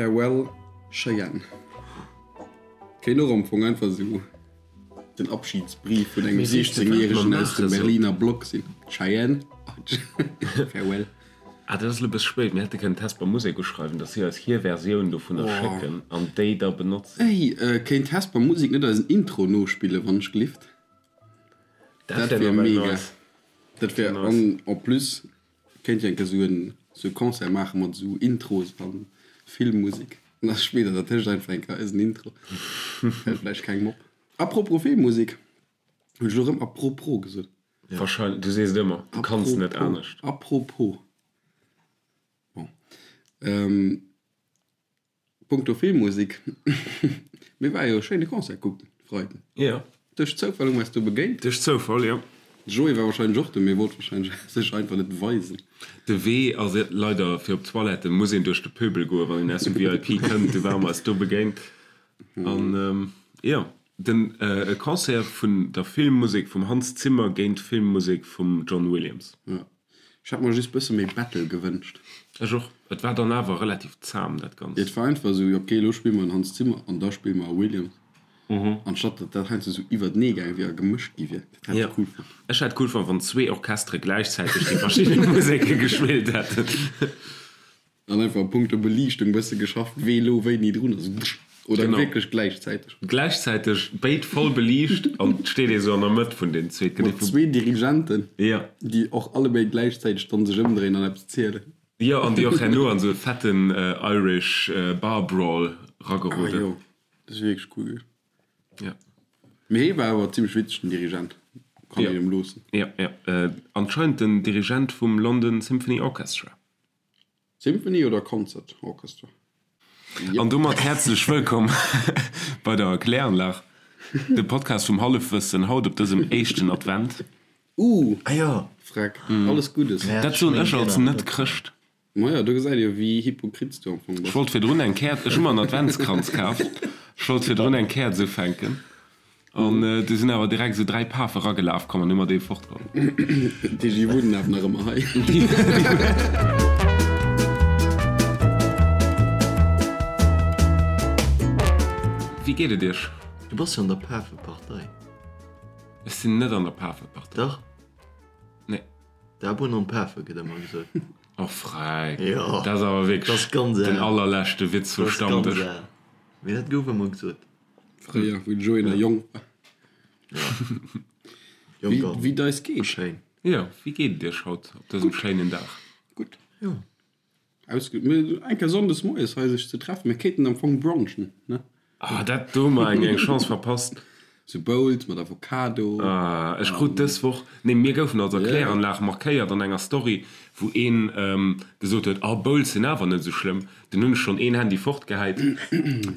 Farewell Cheyenne. Kéint och am Fong einfach esou den Abschiedsbrief vun engem 16 järegen aus dem Berliner Block sinn. Cheyenne, Farewell. Ah, dat ass elo e bësse spéit. Mir hätte kënnen d'Hesper Musek uschreiwen, dass si eis hir Versioun dovunner schécken an déi da benotzen. Ey, kéint d'Hesper Musek net eisen Intro nospillen, wann ech glift? Dat Dat wär wier nawell mega. nice. Dat wär, an en plus kéint Dir eng Kéier esou en esou e Concert maache mat esou Intros a Filmmusek. An da spillt Der dertëscht einfach eng Kéier eisen Intro. Fält vläicht kengem op. Apropos Filmmusek, hunn ech elo erëm apropos gesot? Wahrscheinlech, du sees et ëmmer, du kanns net anescht. Apropos. Bon. Punkto Filmmusek, mir ware jo e schéine Concert kucken, Freiden. Jo. Duerch Zoufall hu mer eis do begéint. Duerch Zoufall, jo. De Joé war wahrscheinlech och do, mee wollt wahrscheinlech sech einfach net weisen. De Wee ass leider, fir op d'Toilette muss een duerch de Pöbel goen, wann een aus dem VIP kënnt. Du ware mer eis do begéint. An jo, den e Concert vun der Filmmusek vum Hans Zimmer géint d'Filmmusek vum John Williams. Jo. Ech hätt mer just bësse méi Battle gewënscht. Ech och. Et war dann awer relativ zahm dat Ganzt. Et war einfach esou, ok elo spille mer en Hans Zimmer an da spille mer e Williams. Anstatt datt dat heiansdo esou iwwertenee gaange wier a gemëscht gi wier. Dat hätt ech cool fonnt. Ech hätt cool fonnt wann zwee Orchestere gläichzäiteg déi verschidde Museke gespillt hätten. An einfach a punkto Beliichtung bësse geschafft, wee lo wéini drun ass, oder Genau. wierklech gläichzäiteg. Gläichzäiteg, béid voll beliicht an et steet ee sou an der Mëtt vun den zwee. Et gëtt ee Mat vu. zwee Dirigenten, Ja. déi och allebéid gläichzäiteg dann sech ëmdréinen an eppes zielen. Jo, an déi och herno an sou e fetten Irish Bar Brawl Ah rageroden. jo, dat ass wierklech cool gewiescht. Ja. Mee hee war awer zimmlech witzeg, den Dirigent. Kann Ja. een em loossen. Ja, ja. Anscheinend den Dirigent vum London Symphony Orchestra. Symphony oder Concert Orchestra? An domat häerzlech wëllkomm bei der Kläranlag, dem Podcast vum Hallefwëssen, haut op dësem éischten Advent. Uh, Ah jo. Freck, alles Guddes. Dat soen ech als Net-Chrëscht. Maja, do gesäit ee jo wéi hypokrit s du am Fong Ech bass. wollt virdrun eng Käerz, ech hu mer en Adventskranz kaf, ech wollt virdrun eng Käerz ufänken. An du sinn awer direkt esou 3 Pafe ragelaf komm an hu mer dee fortgeholl. Déi wunnen awer nach ëmmer hei. Wéi geet et iech? Du bass jo an der Pafepartei. Ech sinn net an der Pafepartei. Dach. Nee. D'Abunn an d'Pafe gëtt ëmmer gesot. Oh Freck, Jo. dat ass awer wierklech den allerleschte Witz vum Stammdësch. Dat ass ganz al. Mee dat gouf ëmmer gesot. Fréier, wou de Joé nach jonk war. Jonk an Wéi et eis geet? schéin. Jo, wéi geet et iech haut op dësem schéinen Dag? Gutt. Jo. Ausge mir eng Kéier sonndes moies hei sech ze treffen. Mir kéinten am Fong brunchen, ne? Ah, dat do hu mer eng eng Chance verpasst. Sou Bowls mat Avocado. Ah, ech krut dës Woch, nee, mir goufen als Erkläranlag markéiert an enger Story, wou een gesot huet, ah, Bowls sinn awer net esou schlëmm. Dunn hunn ech schonn een Handy fortgehäit,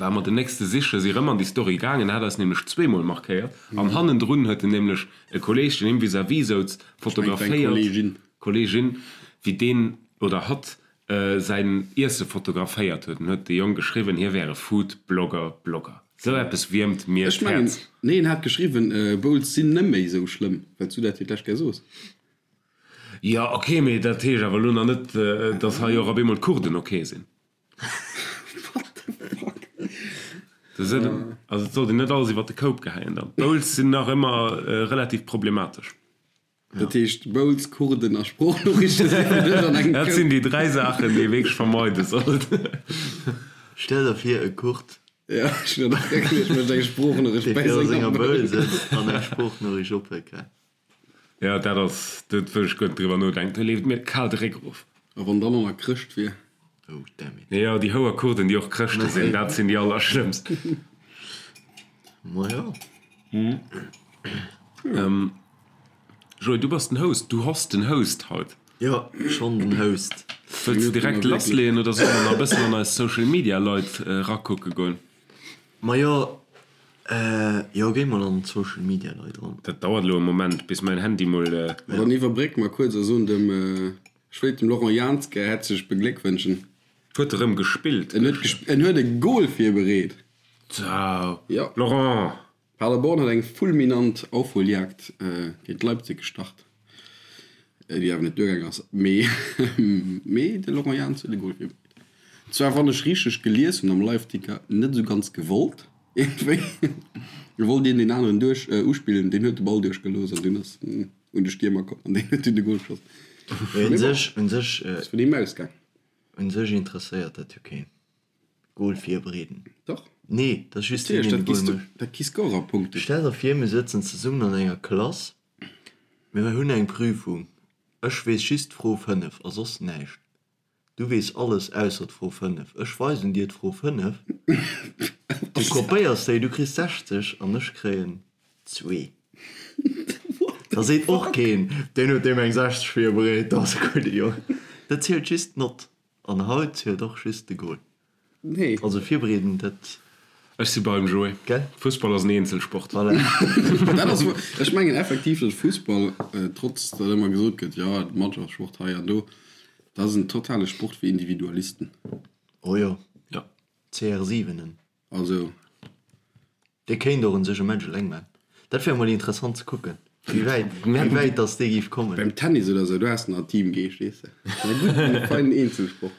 war mer den nächste sichen, si rëm an déi Story gaangen, hat eis nämlech zweemol markéiert an hannendrun huet en nämlech e Kolleeg, deen him vis-à-vis souz, fotograféiert, Kolleegin, wéi deen oder hatt säin Iesse fotograféiert huet. An huet de Jong geschriwwen, hie wär e Food-Blogger, Blogger. Sou eppes wiermt mir Ech mengen, d'Häerz. nee, en hat geschriwwen, Bowls sinn neméi sou schlëmm, well s du dat fir d'lescht Kéier soos. Jo ok, mee dat heescht awer elo nach net, dass hei och op eemol d'Kurden ok sinn. What the fuck? Also et sollt een net alles iwwer de Koup gehäien dann. D'Bowls sinn nach ëmmer relativ problematesch. Dat heescht Bowls, Kurden a Sproochnoriichte si fir dech an engem Dat Koup? sinn déi 3 Saachen, déi ee wierklech vermeide sollt. Stell der vir e Kurd, Ja, ech hunn dat och geduecht, mécht eng Sproochnoriicht dee bei viru senger senger Bowl Bowl. sëtzt an eng Sproochnoriicht ophëlt. Jo, dat ass, do wëll ech guer net driwwer nodenken, do leeft mir kal de Réck erof. A wann dann och nach Chrëscht wier. Oh damn it. Jo, déi houer Kurden, déi och Chrëschte sinn, dat sinn déi allerschlëmmst. Majo. Joé, du bass den Host, du host den Host haut. Jo, schonn den Host. Wëlls de direkt lassleeën oder solle mer nach e bëssen an eis Social Media Leit erakucke goen? Majo, jo, géi mol an d'Social Media Leit eran. Dat dauert elo e Moment, bis mäin Handy mol. Ma dann iwwerbrécke mer kuerz a soen dem, ech wéilt dem Laurent Jans gär häerzlech begléckwënschen. Huet e rëm gespillt? En huet gesp, en huet e Goal virbereet. Zau! Jo. Laurent! Paderborn huet eng fulminant Aufholjagd géint Leipzig gestart, déi awer net duergaang ass. Mee, mee de Laurent Jans huet e Goal virbereet. Zwar wann ech richteg gelies hunn am Liveticker, net esou ganz gewollt iergendwéi. Do wollt een deen aneren duerch uspillen, deen huet de Ball duerchgelooss an dunn ass en un de Stiermer komm an deen huet dunn de Gol geschoss. Mee un sech, un sech. Ass vun him ausgaang. Un sech interesséiert dat jo keen. Goal virbereeden. Dach. Nee, dat ass just deen, deen de Goal mécht. Dat gi Scorerpunkten. Stell der vir, mir sëtzen zesummen an enger Klass, mir hunn eng Prüfung, ech weess just d'Fro 5 a soss näischt. Du weess alles ausser d'Fro 5. Ech weisen dir d'Fro 5, du kopéiers déi, du kriss 60 an ech kréien zwee. Da seet och keen, deen huet deem eng 60 virbereet, dat ass e gudde Jong. Dat zielt just d'Nott. An haut zielt och just de Goal. Nee. Also virbereeden, dat. Ech si beim Joé. Gell? Fussball ass en Eenzelsport. Voilà. Dat ass wou, ech mengen effektiv, datt Fussball, trotz datt ëmmer gesot gëtt, jo, Mannschaftssport hei an do, dat ass en totale Sport fir Individualisten. Oh jo. Ja. CR7en. Also. Dee kéint och un sech e Match eleng man. Dat wär mol interessant ze kucken, wéi wäit, wéi wäit dass dee géif kommen. Beim Tennis oder sou, do has de nach Teamgeescht, weess de. Mä gutt, e feinen Eenzelsport.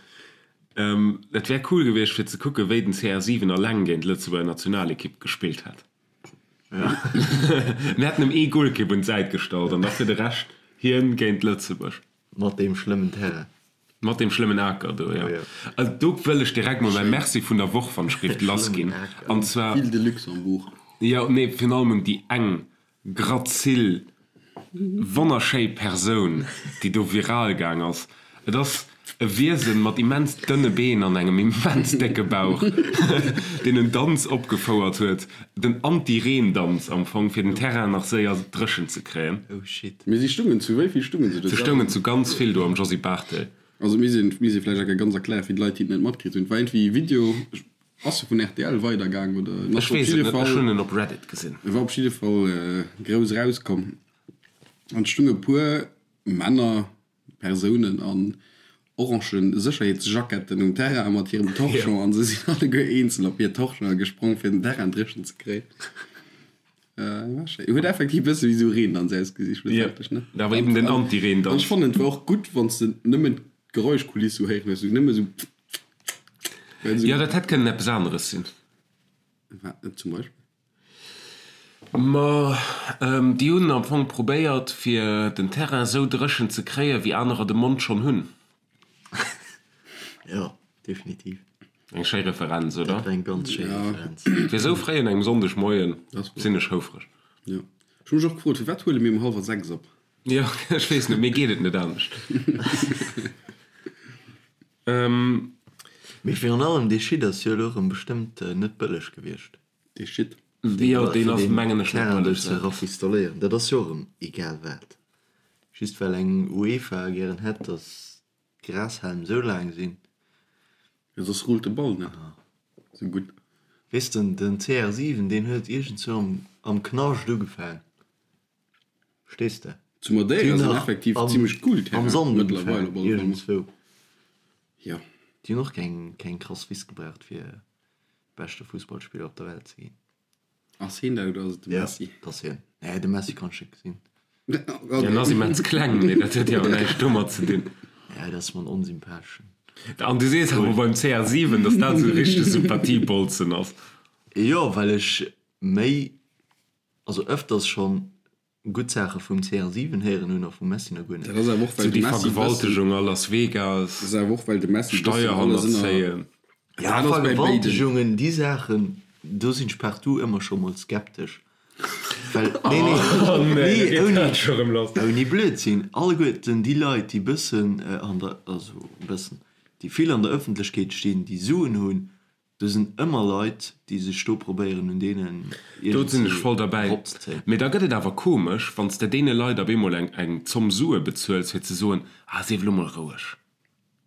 Et wär cool gewiescht fir ze kucken, wéi den CR7 eleng géint d'Lëtzebuerger Nationalekipp gespillt hätt. Mir hätten em ee Golkipp un d'Säit gestallt an da fir de Rescht hien géint Lëtzebuerg. Mat deem schlëmmen Terrain. Mat deem schlëmmen Aker do, jo. Also do wëll ech direkt mol mäi Merci vun der Woch wann ech géif lassginn. An zwar. Ville de Luxembourg. Jo, nee, virun allem un déi eng grazil, wonnerschéi Persoun, déi do viral gaang ass. Et ass e Wiesen mat immens dënne Been an engem immens décke Bauch, deen en Danz opgefouert huet, den Anti-Reen-Danz am Fong, fir den Terrain nach séier dréchen ze kréien. Oh shit. Mee si stungen zu wéi vill stungen se do? Se stoungen zu ganz vill do am Josy Barthel. Also mir sinn, mir si vläicht enke ganz erklären fir d'Leit déi et net matkritt hunn. Et war iergendwéi e Video, ass e vun rtl weidergaang oder en ass Ech op weess et jidde net, ech Fall, hunn en op Reddit gesinn. e war op jidde Fall grouss erauskomm an et stunge puer Männer, Persounen an orange Sécherheetsjacketten um Terrain mat hirem Torchon an se sinn alleguer eenzel op hir Torchonen gesprong fir den Terrain dréchen ze kréien. War schéin. Huet effektiv e bësse wéi sou Reendanz ausgesi schlussendlech, ne? Ja, awer eben den Anti-Reendanz. An ech fannen et war och gutt wann s de nëmmen d'Geräuschkuliss sou héieren hues, sou nëmme sou well sou. Jo, dat hätt kënnen eppes aneres sinn. Wat zum Beispill? Ma déi hunn am Fong probéiert, fir den Terrain esou dréchen ze kréien, wéi anerer de Mond schonn hunn. Jo, definitiv. Eng schéi Referenz, oder? Dat war eng ganz schéi Referenz. Fir esou fréi un engem Sonndegmoien sinn ech houfreg. Jo. Ech hu mech och gefrot, firwat huele mir um hallwer 6 op? Jo, ech weess net, mir geet et net anescht. Mee virun allem, dee Shit ass jo elo erëm bestëmmt net bëlleg gewiescht. Dee Shit. Jo, deen ass mengen ech net Terrain bëlleg. ze rafistoléieren, dat ass jo och erëm egal wat. Just well eng UEFA gären hätt, datt d'Grashälm esou laang sinn. Jo, soss rullt de Ball net esou gutt. Weess de, den CR7, deen huet iergendzwou am, am Knascht ugefaang. Verstees de? Zu Madeira sinn effektiv zimmlech cool Am Terrainen Sand mëttlerweil ugefaang, op alle Fall. iergendzwou. Jo. Déi hunn och keng, keng krass Wiss gebraucht, fir beschte Fussballspiller op der Welt ze ginn. Ass hien dat oder ass et de Messi? Ja, dat ass hien. Nee, de Messi kann ech net gesinn. Hien ass immens kleng, mee dat huet jo awer näischt domat ze dinn. Ja, dat ass mer en onsympatheschen. An du sees awer beim CR7, datt dat esou e richtege Sympathiebolzen ass. Jo, well ech méi, also ëfters schonn Gutt Saache vum CR7 héieren hunn a vum Messi nach guer net. Dat ass awer och well Sou de déi Messi bëssen, Vergewaltegung a Las Vegas, dat ass awer och well de Messi bëssen alles ënner, Steierhannerzéien. Ja, dat ass bei béiden. Vergewaltegungen, déi Saachen, do sinn ech partout ëmmer scho mol skeptesch. Well, nee, nee, Oh nee, da nee, geet ouni, dat scho rëm lass. ouni Blödsinn, alleguerten déi Leit, déi bëssen an der, also bëssen, déi vill an der Ëffentlechkeet stinn, déi Suen hunn, Do sinn ëmmer Leit, déi sech do probéieren un deenen Do sinn ech voll iergendwéi derbäi. eropzezéien. Mee da gëtt et awer komesch, wann s de deene Leit op eemol eng eng Zomm Sue bezuels, fir ze soen, Ah, sief elo mol roueg.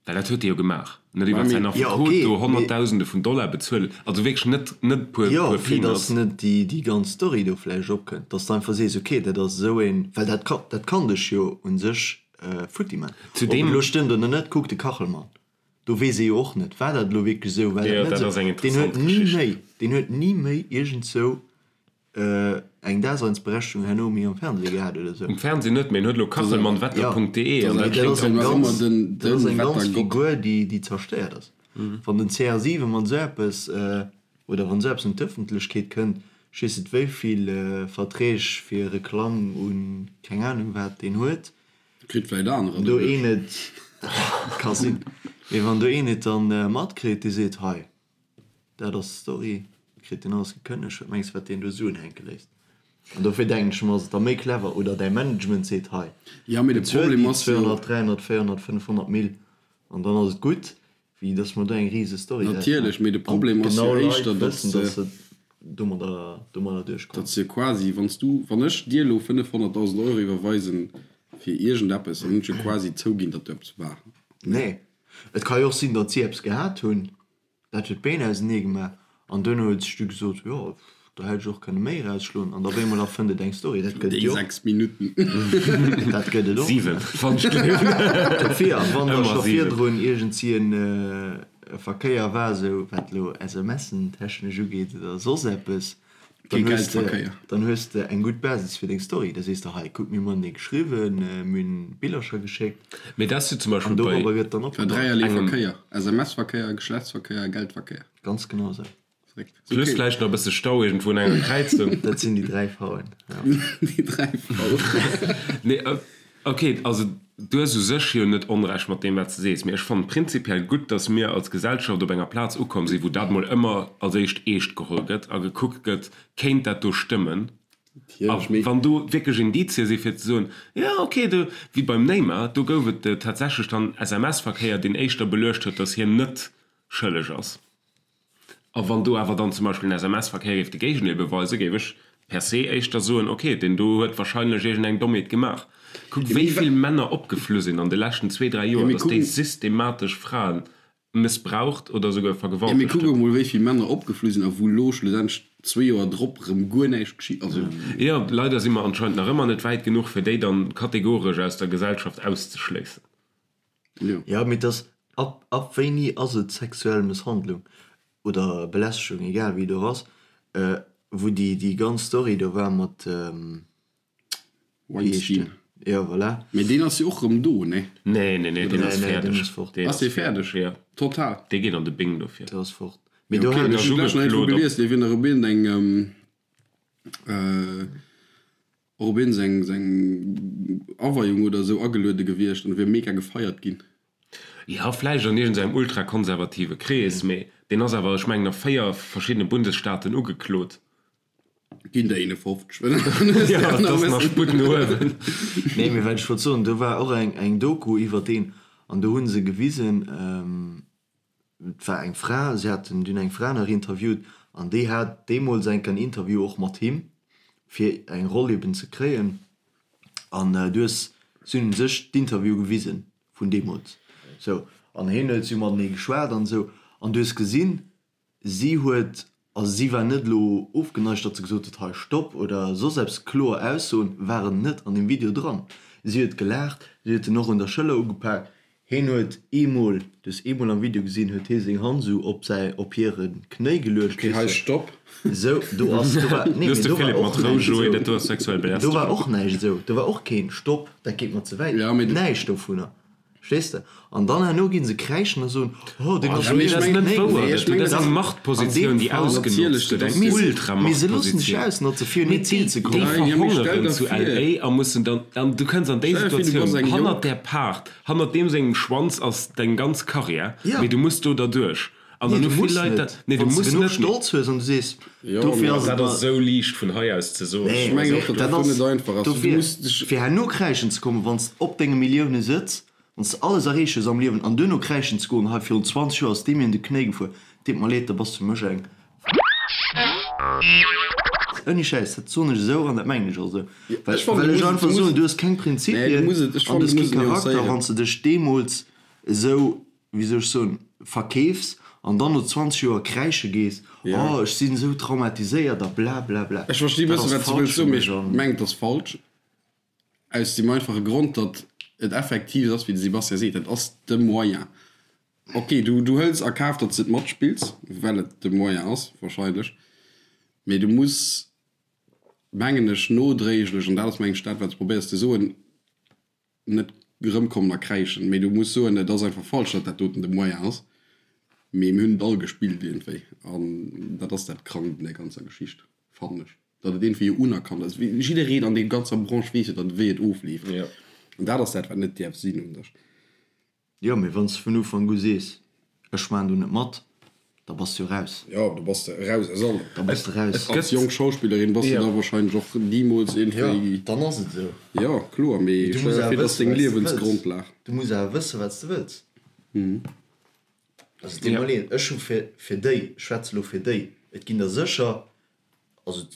Well dat huet e jo gemaach. En huet iwwer säin Jo, Affekot okay, do mee. Honnertdausende vun Dollar bezuelt. Also wierklech net net puer Jo, puer fir Peanuts. datt net déi déi ganz Story do vläicht opkënnt, datt s de einfach sees, okay, dat ass esou een, well dat ka dat kann dech jo u sech futti man. Ob et Zudeem. elo stëmmt oder net, kuck de Kachelmann. Do weess ee jo och net, war dat elo wierklech esou, war dat Jo, net dat esou. ass eng Deen huet interessant ni Geschicht. méi, deen huet ni méi iergendzou eng Daseinsberechtigung herno méi am Fernseh gehat oder esou. Um Fernseh net, mee en huet elo Ja, kachelmannwetter.de an mee dat dat kléngt ass eng och ganz, den dat ass eng ganz Wettergott. Figur, déi, déi zerstéiert ass. Wann den CR7 mat esou eppes, oder wann esou eppes un d'Ëffentlechkeet kënnt, ech weess net wéi vill Verträg fir Reklamm un keng Anung wat deen huet, Kritt vläit anerer do een et, ka sinn, mee wann do een et dann matkritt, dee seet, hei dat ass d'Story, kritt deen alles gekënnegt, wat mengs de wat deen do Suen hänke léisst? An dofir denken ech mer, ass et da méi clever, oder däi Management seet, hei Ja, mee de bezuel Problem déi ass jo. 200, 300, 400, 500 Mille an dann ass et gutt, wéi dass mer do eng rise Story draus Natierlech, maachen mee de an Problem ass jo genau Leit éischter, datt wëssen, se. dass se domadder, domadder duerchkommen. Datt se quasi, wann s du, wann ech dir elo 500.000 Euro iwwerweisen fir iergendeppes, dann hunn ech jo quasi zouginn, datt do eppes war. Nee, et ka jo och sinn, datt si eppes gehat hunn, Dat huet d'Been ausenee gemaach an duerno huet sech du gesot, jo, do hätt ech och kënne méi erausschloen an da op eemol erfënnt et eng Story. Dat gëtt et Déi jo och. 6 Minutten. Dat gëtt et och. 7, wann ech gleewen. Dofir, wann da Ëmmer scho 7. virdrun iergendsi en Verkéier war, esou wat elo SMSen technesch ugeet oder soss eppes, Kee Dann hues de, Geldverkéier. dann hues de eng gutt Basis fir deng Story. Da sees de, hei, kuck, mir hunn matenee geschriwwen, mir hunn Billercher geschéckt. Mee dat ass jo zum Beispill An bei. dorobber gëtt dann War opgebaut. dräierlee Engem. Verkéier, SMS-Verkéier, Geschlechtsverkéier, Geldverkéier. Ganz genau esou. Verréckt. Plus Okay. vläicht nach e bësse Stau iergendwou un enger Kräizung. Dat sinn déi dräi V'en, ja. Déi dräi V'en. Nee, ok, also du hues u sech jo net Onrecht mat deem, wat s de sees. Mee ech fannen prinzipiell gutt, datt mir als Gesellschaft op enger Plaz ukomm sinn, wou dat mol ëmmer als éischt eescht geholl gëtt a gekuckt gëtt, kéint dat do stëmmen? A wann do wierklech Indizie si fir ze soen, jo ok, do, wéi beim Neymar, do gouf et tatsächlech dann SMS-Verkéier, deen éischter beluecht huet, datt hien net schëlleg ass. A wann do awer dann zum Beispill en SMS-Verkéier géif de Géigendeel beweisen, géif ech per se éischter soen, ok, deen do huet wahrscheinlech iergendeng Dommheet gemaach. Kuck, wéi vill Männer opgeflu sinn an de leschten zwee, dräi Joer, datt déi systematesch Frae mëssbraucht oder esouguer Jo, mee vergewaltegt kuck hunn. emol, wéi vill Männer opgeflu sinn a wou elo schlussendlech zwee Joer drop erëm guer näischt geschitt. Also. Jo, leider si mer anscheinend nach ëmmer net wäit genuch, fir déi dann kategoresch aus der Gesellschaft auszeschléissen. Jo. Jo, mee dass, ab, ab wéini ass et sexuell Mësshandlung oder Belästegung, egal wéi et och ass, wou déi, déi ganz Story do war mat, wéi heescht Weinstein. deen? Jo, voilà. Mee deen ass jo och rëm do, nee? Nee, nee, nee, deen ass Nee, nee, deen fäerdeg. ass fort. Deen Ass ass dee fäerdeg, fäerdeg? jo. Total? Dee geet an de Bing dofir. Dee ass fort. Mee Jo, do okay, hat ech ech. hunn d'lescht nach iergendwou Ugeklot op. gelies, dee wier nach op iergendeng, Och op een seng seng Aweiung oder esou ageluede gewiescht an wier mega gefeiert ginn. Jo, vläicht an iergendengem ultrakonservative Krees, mee deen ass awer, ech mengen, a 4 verschiddene Bundesstaaten ugeklot. Ginn der 51, well dann hues de Jo, nach et e ass nach bëssen. Sputt no uewen. Nee, mee wat ech wollt soen, do war och eng eng Doku iwwer deen an do hu se gewisen, Et war eng Fra, si haten dunn eng Fra nach interviewt an déi hat deemools enk en Interview och mat him, fir eng Roll eben ze kréien. An du hues, si hunn sech d'Interview gewisen vun deemools, sou, an hien huet, si hu matenee geschwat an esou, an du hues gesinn, si huet Also si war net elo ofgeneigt, datt se gesot huet, hei Stopp oder soss eppes. Kloer Aussoen waren net an deem Video dran. Si huet gelaacht, si huet en och un der Schëller ugepak. Hien huet eemol, du hues eemol am Video gesinn, huet hie seng Hand esou op säi, op hire Knéi geluecht, Okay, hei weess de. Stopp. Esou, do ass, do war, nee, Du hues mee de do war Philippe och mat Rou, näischt Joé, esou. dat do ass sexuell Do war Belästegung. och näischt esou, do war och keen Stopp, dat geet mer ze wäit, Ja, mee. näischt dovunner. Verstees de? An dann herno ginn se kräischen a soen, oh, deen ass Oh, jo dat ass net wouer. Dat Dat ass eng Machtpositioun, déi ausgenotzt gëtt, eng Ultramachtpositioun. Mee Ausnotze fir un hiert Zil ze déi kommen. verhongeren zu LA a mussen dann, an du kënns an déi Situatioun, hannert där Paart, hannert deem sengem Schwanz ass deng ganz Karriär, mee du muss do derduerch. An Nee, dann du hu vill muss Leit net. dat, nee, du Wann s muss de genuch net. Stolz hues an du sees, dofir ass et Dat mer. ass esou liicht vun hei aus ze soen. Nee, Ech mengen och, datt dat dat ass net einfach ass. Du dofir, muss dech. fir herno kräischen ze kommen, wann s op denge Millioune sëtz, wann s de alles erreecht hues am Liewen an duerno kräischen ze goen, hei virun 20 Joer ass dee mir un de Knéi gefuer, deet mer leed, da bass du mech eng. Ouni Schäiss, dat soen ech esou an dat mengen ech och esou, well Ech fannen, well du ech muss et, einfach du muss soen, et, du hues keng nee, du Prinzipien muss et, ech an du fannen, hues du kee muss et Charakter, nuancéieren. wann s de dech deemools esou wéi soll ech soen, verkeefs an dann no 20 Joer kräische gees, oh ech sinn esou traumatiséiert a bla bla bla. Ech versti Dat bëssen, ass wat s de falsch wëlls fir soen, mee mech ech an. mengen, et ass falsch, aus deem einfache Grond, datt et effektiv ass, wéi de Sebastian seet, dat ass de Moyen. Ok, du, du hëls a Kaf, datt s de et matspills, well et de Moyen ass, wahrscheinlech, mee du muss, mengen ech, nodréiglech, an dat ass, mengen ech, dat, wat s de probéiers ze soen, net erëmkommen a kräischen, mee du muss soen, et ass einfach falsch, datt dat doten de Moyen ass. Mee mir hunn et all gespillt iergendwéi. An dat ass dat Krankt un där ganzer Geschicht, fannen ech. Datt et iergendwéi jo unerkannt ass. Jiddereen an deem ganzer Branche weess jo dann, wéi et ofleeft. An dat ass dat, wat net däerf sinn un sech. Jo, mee wann s de vun Ufank u sees, ech maachen do net mat, da bass de jo raus. Jo, da bass de eraus aus allem. Da bass de raus. Als jonk Schauspillerin bass de da wahrscheinlech och nimools iergendwéi. Jo, dann ass et esou. Jo, kloer, mee Du muss stell der awer vir, et ass wëssen, deng wat s de wëlls. Liewensgrondlag. Du muss awer wëssen, wat s de wëlls. Also, deet mer leed, ech hu fir, fir déi, ech schwätze elo fir déi, et ginn der sécher, also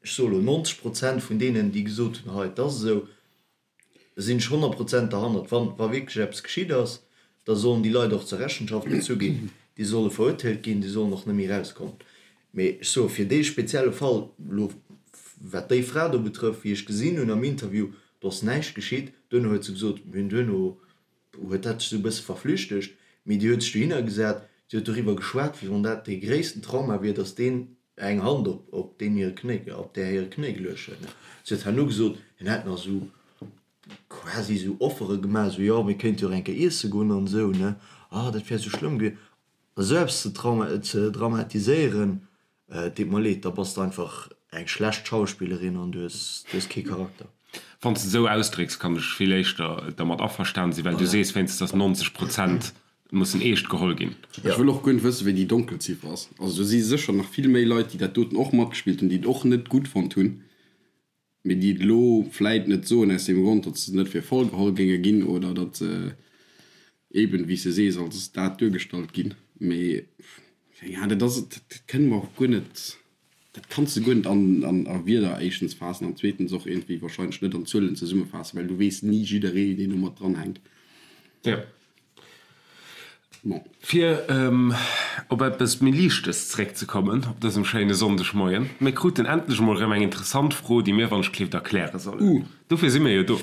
ech soe elo 90 Prozent vun deenen, déi gesot hunn, hei, et ass esou, sinn ech 100 Prozent derhannert. Wann, wa wierklech eppes geschitt ass, da sollen déi Leit och zur Rechenschaft gezu ginn, déi solle verurteelt ginn, déi sollen och net méi erauskommen. Mee ech soe fir dee spezielle Fall elo, wat déi Fra do betrëfft, wéi ech gesinn hunn am Interview, do ass näischt geschitt. Duerno huet se gesot, mir hunn duerno huet dat sech esou e bësse verflüchtegt, mee déi huet sech dohinner gesat, si huet doriwwer geschwat, wéi wann dat dee gréissten Trauma wier, datt deen eng Hand op op deen hire Knéi, op där hire Knéi geluecht huet. Si huet herno gesot, hien hätt nach esou quasi esou Offere gemaach, esou, jo, mir kéinte jo och eng Kéier iesse goen an esou, ne, ah, dat wär esou schlëmm gewiescht. Esou eppes ze trauma ze dramatiséieren, Et deet mer leed, da bass de einfach eng schlecht Schauspillerin an du hues, du hues kee Charakter. Wann s de esou ausdrécks, kann ech vill éischter dermat averstan sinn, well du sees wéinstens, dass 90 Prozent mussen eescht geholl ginn. Ech wëll och guer net wëssen, wéi déi Donkelziffer ass. Also do si sécher nach vill méi Leit, déi dat doten och matgespillt hunn, déi et och net gutt fonnt hunn. Mee déi et elo vläit net soen aus deem Grond, datt se net fir voll geholl géinge ginn oder datt se eben, wéi s de sees, als dat duergestallt ginn. Mee keng Ahnung, dat ass, dat kënne mer och guer net, dat kanns de guer net an a Wierder éischtens faassen an zweetens och iergendwéi wahrscheinlech net an Zuelen zesummefaassen, well du weess ni jidderee, deen do mat dranhänkt. Jo. Bon. Fir op eppes méi Liichtes zeréckzekommen op dësem schéine Sonndegmoien, Mir kruten endlech emol erëm eng interessant Fro, déi mir wann-ech-kleeft erkläre sollen. Dofir si mir jo do.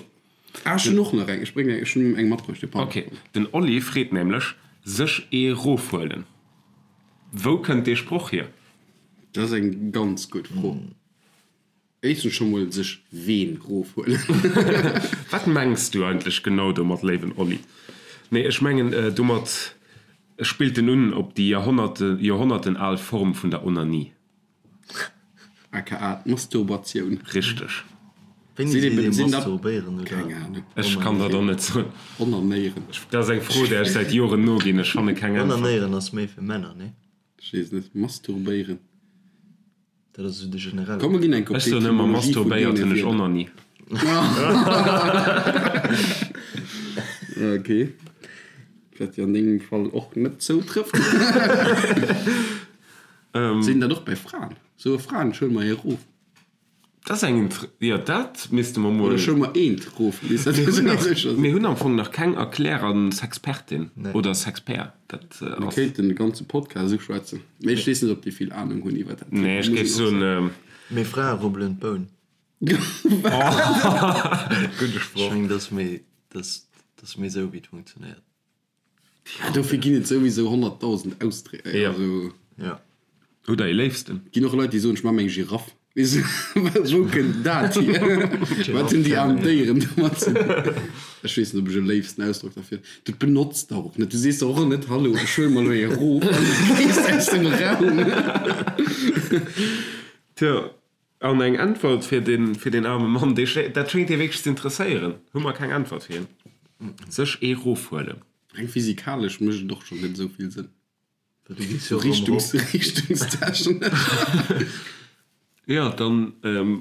Ah, ech hunn och nach eng. Ech bréngen eng, ech hunn eng matbruecht, jo, pardon. Ok, den Oli freet nämlech, Sech ee rofhuelen, wou kënnt dee Sproch hier? Dat ass eng ganz gutt Fro. Éischtens scho mol sech ween rofhuelen. Wat mengs du eigentlech genau domat, léiwen Oli? Nee, ech mengen domat spillt en un op déi Joerhonnerten al Form vun der Onanie. Aka d'Masturbatioun. Richteg. Wéini seet ee masturbéieren oder Keng Ahnung. Ech kann dat och net soen. Onanéieren. Dat ass eng Fro, där ech säit Joren noginn. Ech fanne keng Äntwert. Onanéieren ass méi fir Männer, nee? Ech weess net. Masturbéieren. Dat ass esou de generelle. Komm mer ginn eng Ech soen ëmmer, Etymologie vun masturbéiert deene hunn ech Wierder. Onanie. Ok. Wat jo an dengem Fall och net zoutrëfft. Sinn dat och bei Fraen? Soe Fraen, ech huele mer ee erof? Dat ass eng inter, jo dat misste mer mol. Oder ech huele mer eent erof, bis dat Mir hunn esou nach, sécher sinn. mir hunn am Fong nach keng Erklär an Sexpertin oder Sexpert. Dat Mir ass. kéinten de ganze Podcast esou schwätzen, mee ech weess net, ob déi vill Anung hunn iwwer dat Thema, Nee, ech muss géif een och soen. soen. Mee Frae rubbelen d'Boun. Gudde Sproch. Ech mengen, dat ass méi, dat ass méi esou, wéi et funktionéiert. Ja, dofir ginn et souwisou 100.000 Ausdréck. Ja. Also, Ja. Hutt der ee Léifsten? ginn och Leit, déi soen, ech maache mir eng Giraff. Weess du, wou kënnt dat hier? Wat hunn déi aarm Déieren domat ze dinn? Ech weess net, ob ech e léifsten Ausdrock derfir. Du benotz dach och net. Du sees dach och net, Hallo, ech huele mer elo ee erof an du gees aus dem Raum. Tjo, An eng Äntwert fir den, fir den aarme Mann, dee schéngt, dat schéngt hie wierklech ze interesséieren, hu mer keng Äntwert fir hien. Sech ee rofhuelen. Reng physikalesch mécht et och schonn net esou vill Sënn. Well du gees jo erëm Richtungs, erop. richtungstechnesch. Jo, dann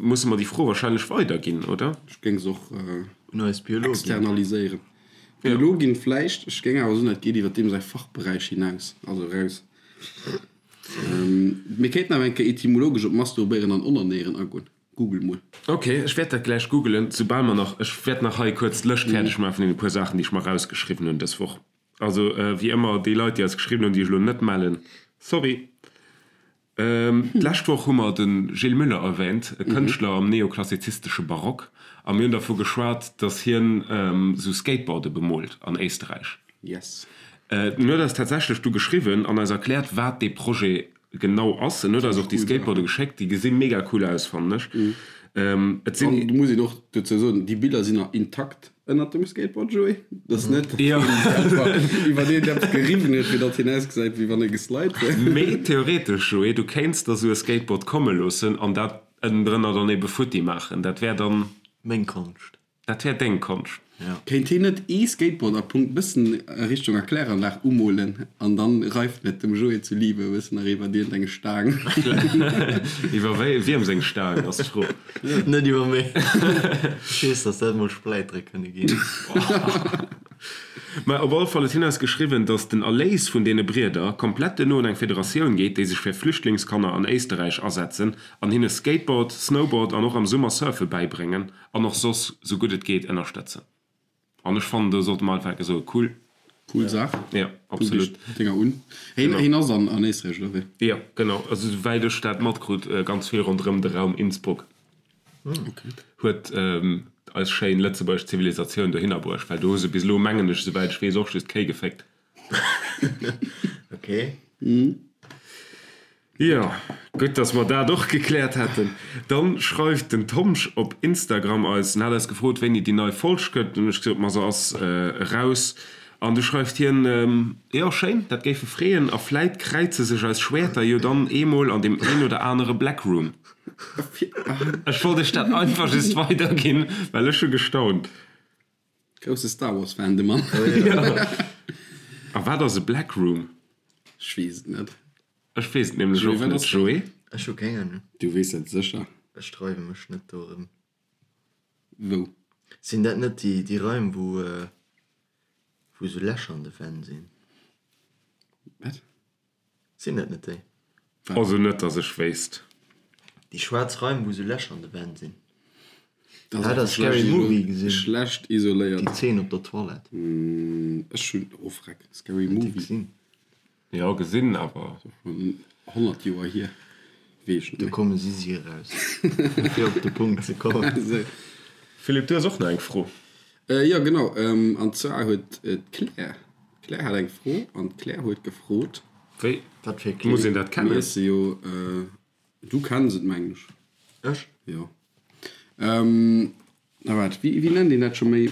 musse mer déi Fro wahrscheinlech weiderginn, oder? Ech géing se och Un eis Biologin. externaliséieren. Biologin vläicht, ech géing awer soen, dat geet iwwer deem säi Fachberäich hinaus, also eraus. Mir kéinten awer eng Kéier etymologesch op Masturbéieren an Onanéieren agoen. Google mol. Ok, ech wäert dat gläich googelen, soubal mer nach, ech wäert nach hei kuerz d'Lëscht fäerdeg maachen vun deene puer Saachen, déi ech mer erausgeschriwwen hunn dës Woch. Also, wéi ëmmer, déi Leit, déi eis geschriwwen hunn, déi ech elo net mellen, sorry. D'lescht Woch hu mer de Gilles Muller erwähnt, e Kënschtler am neoklassizistesche Barock, a mir hunn dervu geschwat, datt hien esou Skateboarde bemoolt an Éisterräich. Yes. En huet eis tatsächlech du geschriwwen an eis erkläert, wat dee Projet genau ass. En huet eis och déi Skateboarde geschéckt. Déi gesi mega cool aus, fannen ech. Et sinn. An do muss een och dozou soen, déi Biller sinn nach intakt ënnert dem Skateboard, Joé. Dat ass net, datt hien se einfach iwwer eent eppes geriwwen huet, fir datt hien ausgesäit, wéi wann e geslide wier. Mee theoretesch, Joé, du kéints der esou e Skateboard komme loossen an dat ënnendrënner dann ebe futti maachen. Dat wär dann. Meng Konscht. Dat wär deng Konscht. Ja. Kéint heen net ee Skateboard a Punkt bëssen a Richtung Erkläranlag umolen an dann reift et dem Joé zu Liebe e bëssen nach iwwert iergend eng Staang. Iwwer wéi wiem seng Staang ass d'Fro. Net iwwer meng. Ech weess, dass dat mol Spläitere kënne ginn. Mä op alle Fall huet hien eis geschriwwen, dass den Erléis vun deene Brieder komplett duerno un eng Federatioun geet, déi sech fir Flüchtlingskanner an Éisterräich asetzen an hinne Skateboard, Snowboard an och am Summer Surfe bäibréngen. An och soss sou gutt et geet ënnerstëtzen. An ech fannen do sollte mer einfach enke soen, cool. Cool Saach. Jo, absolut. Kuck dech d'Dénger un. Heen, heen ass an, an Éisträich, oder wéi? Jo, genau. Also souwäit ech dat matkrut, ganz vill ronderëm de Raum Innsbruck. Okay. Huet eis schéin lëtzebuergesch Zivilisatioun dohinner bruecht, well do hu se bis elo, mengen ech, souwäit ech weess, och just Kéi geféckt. Okay. Jo, gutt, dass mer dat och gekläert hätten. Dann schreift den Tomsch op Instagram eis, en hat eis gefrot, wéini déi nei Folg kënnt. Dunn hunn ech gesot, ma se ass eraus. An du schreift hien, Jo, schéin, dat géif e freeën a vläit kräize sech eis Schwäerter jo dann eemol an deem een oder anere Blackroom. Ech wollt iech dat einfach just weiderginn, well ech hu gestaunt. Grousse Star Wars Fan de Mann. A wat ass e Blackroom? Ech weess et net. Ech weess et nämlech och net, Joé. Ech hu keng Ahnung. Du weess et sécher. Ech dreiwe mech net dorëm. Wou? Sinn dat net déi déi Raim wou wou sou Lächer an de Wänn sinn? Wat? Sinn dat net déi? Also net dass ech wéisst. Déi schwaarz Raim wou sou Lächer an de Wänn sinn. Dat Hat der Scary Movie gesinn? Schlecht isoléiert. Déi Zeen op der Toilette. Ech hunn, oh freck, Scary Movie. Jo gesinn awer. Schonn 100 Joer hier, weess ech net Do méi. komme si si eraus, fir op de Punkt ze kommen. Philippe, du hues och nach eng Fro. Jo genau, an zwar huet d'Claire, d'Claire hat eng Fro an d'Claire huet gefrot. Wéi Wat fir muss een dat Mir kennen? esse jo, du kenns et mengen ech. Ech? Jo. Na waart, wéi wéi nennt een dat scho méi,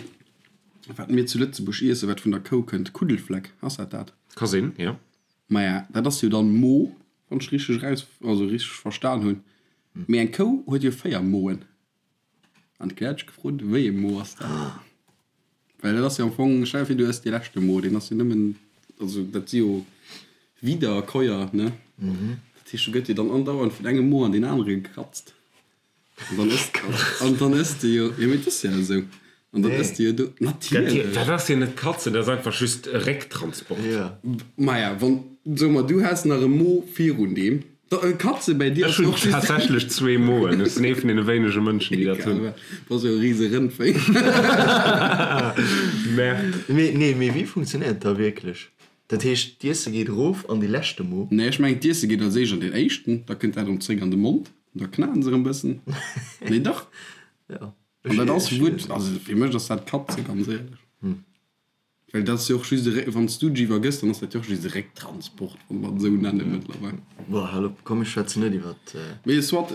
wat mir zu Lëtzebuerg iessen, wat vun der Kou kënnt? Kuddelfleck, ass dat dat? Ka sinn, jo. Maja, dat ass jo dann Mo, wann ech richteg eraus, also richteg verstan hunn. Mee eng Kou huet jo 4 Moen. An d'Claire huet sech gefrot, wéi ee Mo ass dat? Well dat ass jo am Fong, stell dir vir, du ëss dee leschte Mo, deen ass jo nëmmen, also dat si jo Wiederkäuer, ne? Dat heescht, do gëtt jo dann andauernd vun engem Mo an deen anere gekratzt. An dann ëss, an dann ëss de jo, jo mee et ass jo esou, an dann ëss de jo do, natierlech. Dat ass jo net kratzen, dat ass einfach just e Récktransport. Maja, wann, soe mer, du häss nach e Mo virun deem, da, Katze bäi dir Ech ass hunn och just. tatsächlech zwee Moen, ech sinn ee vun deene wéinege Mënschen, déi dat hunn. Egal, bass jo e rise Rëndvéi. Merde. Mee, nee, mee wéi funktionéiert dat da wierklech? Dat heescht, d'Iesse geet erof an dee leschte Mo? Nee, ech mengen, d'Iesse geet als éischt an deen éischten, da kënnt dat erëm zréck an de Mond, an da knaen se erëm e bëssen. Nee, dach. Jo. An dat ass wuert, also fir mech ass dat Katze, ganz éierlech. Well dat ass jo och just e Réck, wann s du dech iwwergëss, dann ass dat jo och just e Récktransport, wa mer et esou nenne mëttlerweil. Bon, hal op, komm, ech schwätzen net iwwert. Mee soit,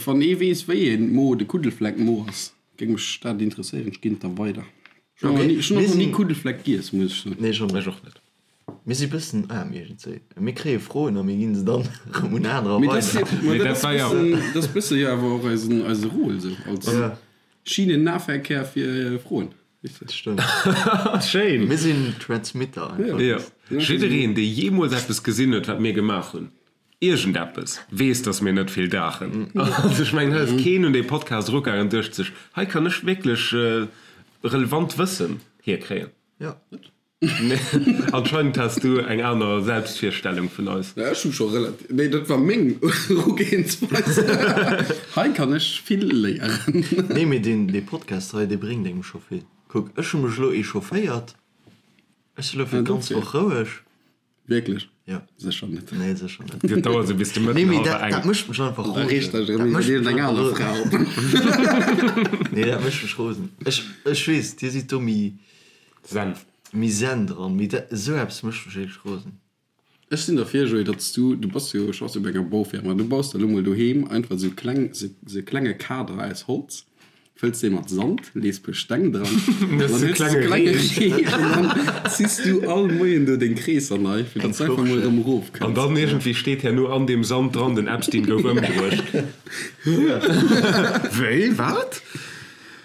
wann ee weess, wéi ee Mo de Kuddelfleck-Mo ass, géing mech dat interesséieren. Ech ginn et da weider. Ech hunn och nach ni Kuddelfleck giess, muss ech soen. Nee, ech och net. Ech och net. Mir si bëssen aarm iergendzwéi. Mir kréie Froen a mir ginn se dann erëm un anerer weider. Mee dat ass bëssen, dat ass bësse jo awer och eisen, eise Rôle esou als Schienennahverkehr fir Froen, weess de. Dat stëmmt. Schéin! Mir sinn Transmitter einfach. Jo. Jiddereen, dee jeemools eppes gesinn huet, wat mir gemaach hunn, iergendeppes, weess, dass mir net vill daachen. Also ech mengen, hei ass keen un dee Podcast erugaangen an duecht sech, hei kann ech wierklech relevant Wëssen hierkréien. Jo. Nee, anscheinend has du eng aner Selbstvirstellung vun eis. Ja, ech hu scho relativ, nee, dat war meng Erugehensweis. Hei kann ech vill léieren. Nee, mee deen, dee Podcast hei, dee bréngt engem scho vill. Kuck, ech hu mech elo echaufféiert, ech si elo fir d'ganz Woch roueg. Wierklech? Jo. Sécher net. Nee, sécher net. Dat dauert esou bis de Mëtten Nee, mee hallwer dat, eng. dat mécht mech einfach Da rosen. reegt dech Dat erëm mécht iwwer mech eng einfach aner rosen. Fra op. Nee, dat mécht mech rosen. Ech, ech weess, dir sidd do méi, Zen. méi zen dran, mee dat, esou eppes mécht mech wierklech rosen. Ech sinn derfir, Joé, datt s du, du bass jo, schaffs jo bei enger Baufirma, du baus der elo mol doheem einfach esou kleng, esou e klenge Kader aus Holz, fëlls dee mat Sand, lees puer Steng dran, an dann hues du esou e klenge Ree an dann ziss du all Moien do deng Kreesser nei, fir datt s einfach mol erëm erof kënns. An dann iergendwéi steet herno an deem Sand dran, den Epstein gouf ëmbruecht. Wéi? Wat?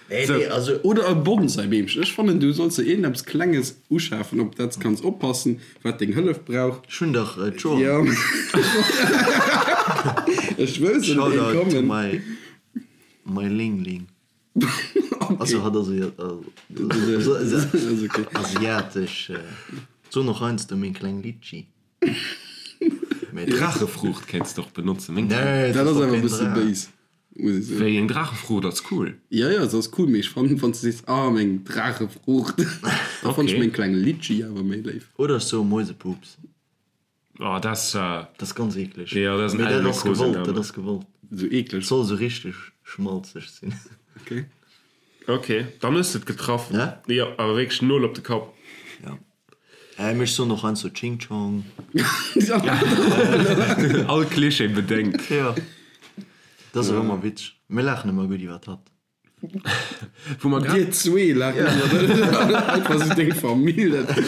Nee, nee, also. Oder e Bonsai-Beemchen. Ech fannen, du solls der iergendeppes Klenges uschafen, op dat s kanns oppassen, wat deng Hëllef brauch. Ech hunn dach d'Joer. Jo, ech wëll se net Shoutout to kommen. my, my Ling-Ling. Also Okay. hat ass Ass okay. asiatesch. Soen och heiansdo meng kleng Litchi. Mee Draachefruucht kéints de och benotzen, meng kleng. Nee, Dat dat ass ass doch awer e keen bësse Draach. béis. Muss ech soen. Wéi eng Draachefruucht ass cool? Jo, jo, se ass cool, mee ech fannen, wann s de sees, ah, meng Draachefruucht, da fann ech Okay. meng kleng Litchi awer méi léif. Oder ech soe Mäusepups. Oh, dat ass. Dat ass ganz eekleg. Jo, dat ass en Mee dat ass gewollt, dat Elmekosename. ass gewollt. Esou eekleg. Et soll esou richteg schmalzeg sinn. Okay. Ok, dann hues de et getraff. Ja? Jo, awer wierklech Nol op de Kapp. Ja. Äh, mee ech soen och heiansdo Ching Chong. All Klischee bedéngt. Jo. Dat ass och ëmmer witzeg. Mir laachen ëmmer gutt iwwert hatt. Wou mer grad. Dir zwee laacht ëmmer. Einfach esou deng Famill. Dat,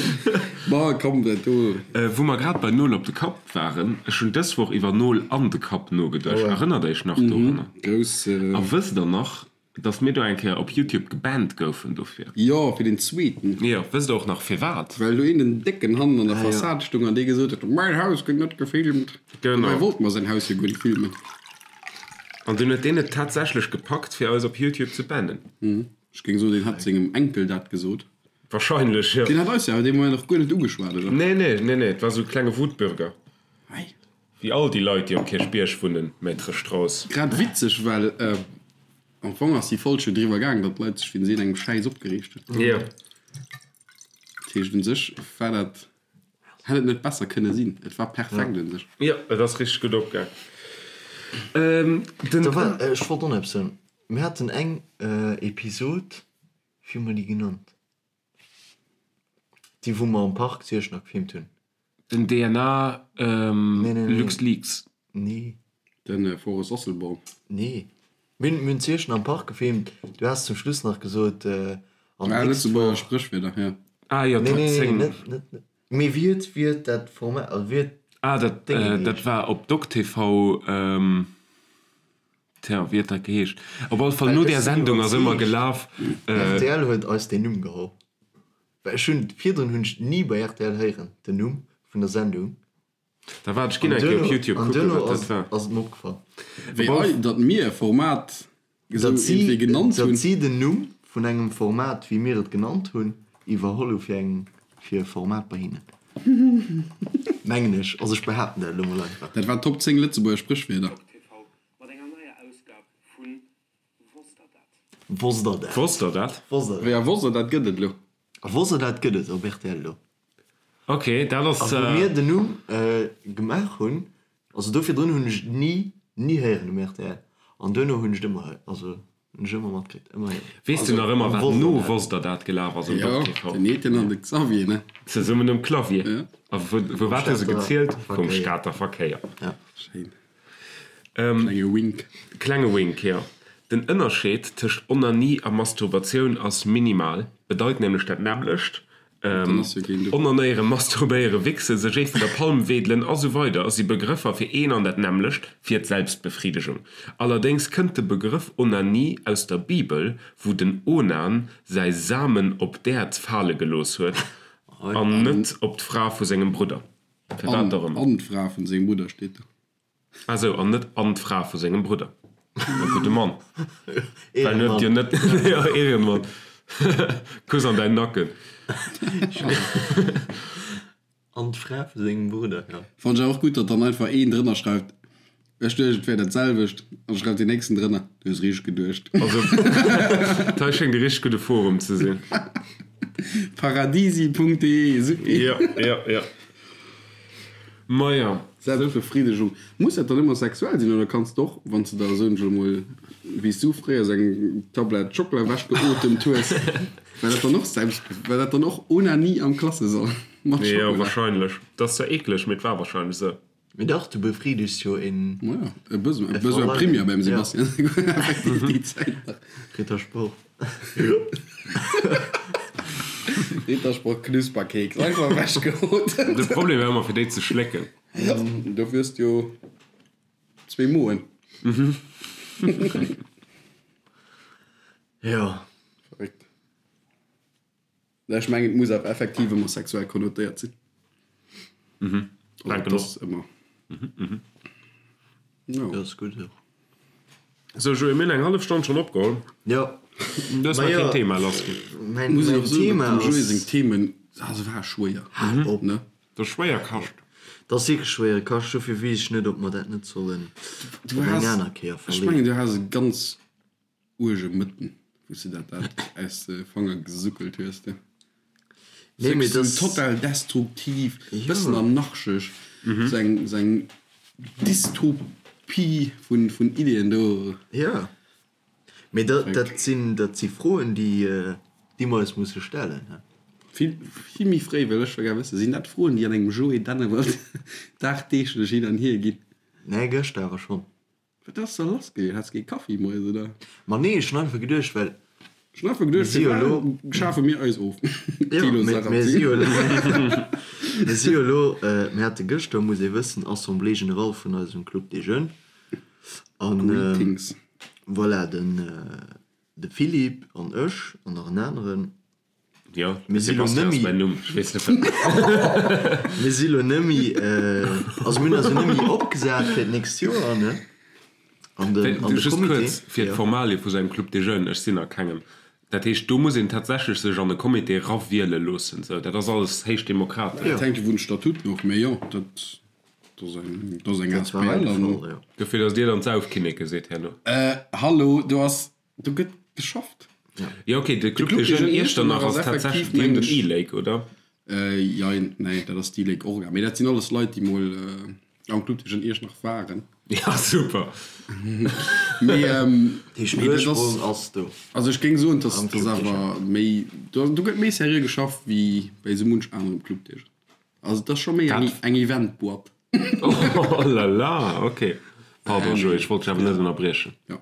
ma komm, dat do. Wou mer grad bei Nol op de Kapp waren, ech hunn dës Woch iwwer Nol an de Kapp nogeduecht. Erënnert Iech nach dorunner? Grouss. A wësst der nach, Dass mir do eng Kéier op Youtube gebannt goufen dofir. Jo, fir den zweeten. Jo, wësst der och nach firwat? Well do een den décken hannen an der Fassad stung an dee gesot huet, Mäin Haus gëtt net gefilmt. Genau. Dobäi wollte mer säin Haus jo guer net filmen. An dunn huet deen et tatsächlech gepackt fir eis op Youtube ze bannen. Ech géing soen, deen hat sengem Enkel dat gesot. Wahrscheinlech, jo. Deen hat eis jo awer dee Moment och guer net ugeschwat, oder? Nee, nee, nee, nee, et war sou e klenge Wutbürger. Hei. Wéi all déi Leit, déi um Kierchbierg wunnen, Maître Strauss. Grad witzeg, well am Fong ass déi Folg jo driwwer gaang, datt d'Leit sech wéinst iergendengem Schäiss opgereegt hunn. Jo. Dat heescht, un sech war dat, hätt et net besser kënne sinn. Et war perfekt un sech. Jo, et ass richteg gutt opgaang. Den. Da war, ech wollt och nach eppes soen. Mir haten eng Episod, wéi hu mer déi genannt? Déi wou mer am Park zu Iechternach gefilmt hunn. Den DNA LuxLeaks. Nee. Den Forest Asselborn. Nee. Mir hunn zu Iechternach am Park gefilmt. Du has zum Schluss nach gesot, an Ah, d'nächst Lëtzebuerger Woch. Spréchwierder, jo. Ah jo, Nee, Top nee, nee, 10. net, net, net. Mee wéi huet, wéi huet dat Format, also wéi huet Ah, dat, d'Dénge dat geheescht? war op DocTV. Tja, wéi huet dat geheescht? Op alle Fall, Well no ech där sinn Sendung ass ëmmer iwwerzeegt, gelaf. Rtl huet eis deen Numm geholl. Well ech hunn, virdrun hunn ech ni bei rtl héieren, den Numm vun der Sendung. Da waart, ech ginn An eng Kéier op duerno, Youtube an kucken, duerno wat dat ass, war. ass et mer opgefall. Wéi Op alle ei, datt mir e Format esou Datt si, iergendwéi genannt datt hunn. si den Numm vun engem Format, wéi mir et genannt hunn, iwwerholl hu fir eng, fir e Format bei hinnen. Mengen ech. Also ech behaapten dat elo mol einfach. Dat war Top 10 Lëtzebuerger Spréchwierder. Mat enger neier Ausgab vu Wosst der dat? Wosst der dat? Wosst der dat? Wosst der dat? Wéi a Wosst der dat gëtt et elo? A Wosst der dat gëtt et op rtl elo. Ok, dat ass. A wou mir den Numm gemaach hunn, also do virdrun hunn ech et ni, ni héieren um rtl. An duerno hunn ech et ëmmer, also hunn ech ëmmer matkritt, ëmmer héieren. Weess du nach ëmmer, wat Wosst der no dat? Wosst der dat gelaf ass um Jo, Dok TV? den Etienne an de Xavier, ne? Zesummen um Clavier. Ja. A wou, wou wat hu se Stater gezielt? Vum Verkéier. Stater Verkéier. Ja. Schéin. Klenge Wink. Klenge Wink, jo. Den Ënnerscheed tëscht Onanie a Masturbatioun ass minimal, bedeit nämlech dat nämmlecht. Onanéieren, masturbéieren, wichsen, sech ee vun der Palm wedelen a sou weider si Begrëffer fir een an dat nämmlecht, fir d'Selbstbefridegung. Allerdéngs kënnt de Begrëff Onanie aus der Bibel, wou den Onan säi Samen op d'Äerd fale gelooss huet an net op d'Fra vu sengem Brudder. Firwat och ëmmer. An d'Fra vun sengem Brudder steet do. Ah sou, an net an d'Fra vu sengem Brudder. E gudde Mann. Well en huet jo net, jo, Ehrenmann. Kuss an däin Nacken. An d'Fra vu sengem Brudder, jo. Fannen ech awer och gutt, datt dann einfach een drënner schreift, ech duecht et wär dat selwecht, an schreift deen nächsten drënner, du hues richteg geduecht. Also, dat hei schéngt e richteg gudde Forum ze sinn. Paradisi.de, supi. Jo, jo, jo. Maja. Selbstbefriedigung. Muss dat dann ëmmer sexuell sinn oder kanns de och, wann s de der, soen ech elo mol, wéi s du fréier sou eng Tablett Schockela ewechgeotemt hues, war dat dann och Selbst, war dat dann och Onanie am Klassesall mat Jo, Schockela? wahrscheinlech. Dat ass zwar eekleg, mee et war wahrscheinlech sou. Mee dach, du befriedegst jo een. Maja, e Besoin, e Besoin primaire beim Sebastian, effektiv déi Zäit nach. Rittersport. Rittersport Knusperkeks, einfach ewechgeotemt. De Problem war ëmmer fir déi ze schlécken. Dofir hues de jo zwee Moen. Jo. Verréckt. Ech mengen et muss awer effektiv ëmmer sexuell konnotéiert sinn. Mhm. Also Denken et ass och. ëmmer. Jo. Jo, ass gutt och. Sou Joé, mir hunn eng hallef Stonn schonn opgeholl. Jo. Du hues Ma nach jo, keen Thema lassginn. mäin, Muss een mäin och soen, Thema datt dem Joé ass. seng Themen, ah se ware schwéier, Hal op. ne? Dat ass schwéier Kascht. Dat ass wierklech schwéiere Kascht, dofir weess ech net, ob mer dat net sollen Du op eng has, aner Kéier ech mengen verleeën. du has e ganz uerge Mëtten, wou s de dat dat aus de Fanger gesuckelt hues, du. Nee, mee Sou das. total destruktiv, bëssen Jo. anarchesch, sou eng, sou eng Dystopie vun, vun Ideeën do. Jo. Mee dat, dat sinn, dat si Froen, déi, déi mer eis musse stellen, he. Vill, vill méi fréi wëll ech scho gär wëssen, sinn dat Froen, déi an engem Joé Dennewald dagdeeglech hin an hier ginn? Nee, gëschter awer schonn. Wat ass da lass gewiescht? Haats kee Kaffi moies oder? Ma nee, ech hunn einfach geduecht, well Ech hunn einfach mir geduecht, si jo elo, firwat schafe mir eis of? jo, Thilo mir, mir si Sarrazin. jo elo, mir si jo elo, mir hate gëschter, muss ee wëssen, Assemblée générale vun eisem Club des Jeunes an Greetings. voilà, den, de Philippe an ech an nach en aneren, Jo, Mir si lo Sebastian ass nëmmi. mäin Numm. Ech weess net wat. Mir si lo nëmmi, also mir hunn eis jo nëmmi opgesat fir d'nächst Joer, ne? An den, an de Just Comité. kuerz fir Jo. d'Formalie vu sengem Club des Jeunes, ech sinn a kengem. Dat heescht, do muss een tatsächlech sech an e Comité erawiele loossen. Sou, dat ass alles héich demokratesch. Dat hänkt jo vun de Statuten of, mee jo, dat ass eng, dat ass eng Dat war hei asbl de an. Fall, jo. Dofir, datt Dir dann d'Saufkinneke sidd herno. Hallo, do ass, do gëtt geschafft. Jo ok, de Club des Jeunes Iechternach ass tatsächlech, déi hunn den E-Lake, oder? Jein, nee, dat ass d'E-Lake Orga. Mee dat sinn alles Leit, déi mol am Club des Jeunes Iechternach waren. Ja, super. Mee Dee mee dat ass, Ursprong ass do. also ech géing soen, dass Am dass Club des awer méi, do do gëtt méi seriö geschafft wéi bei esou munch anerem Club des Jeunes. Also et ass scho méi eng eng Event-Boîte. Oh la la, ok. Pardon Joé, ech wollt dech awer net ënnerbriechen. Jo.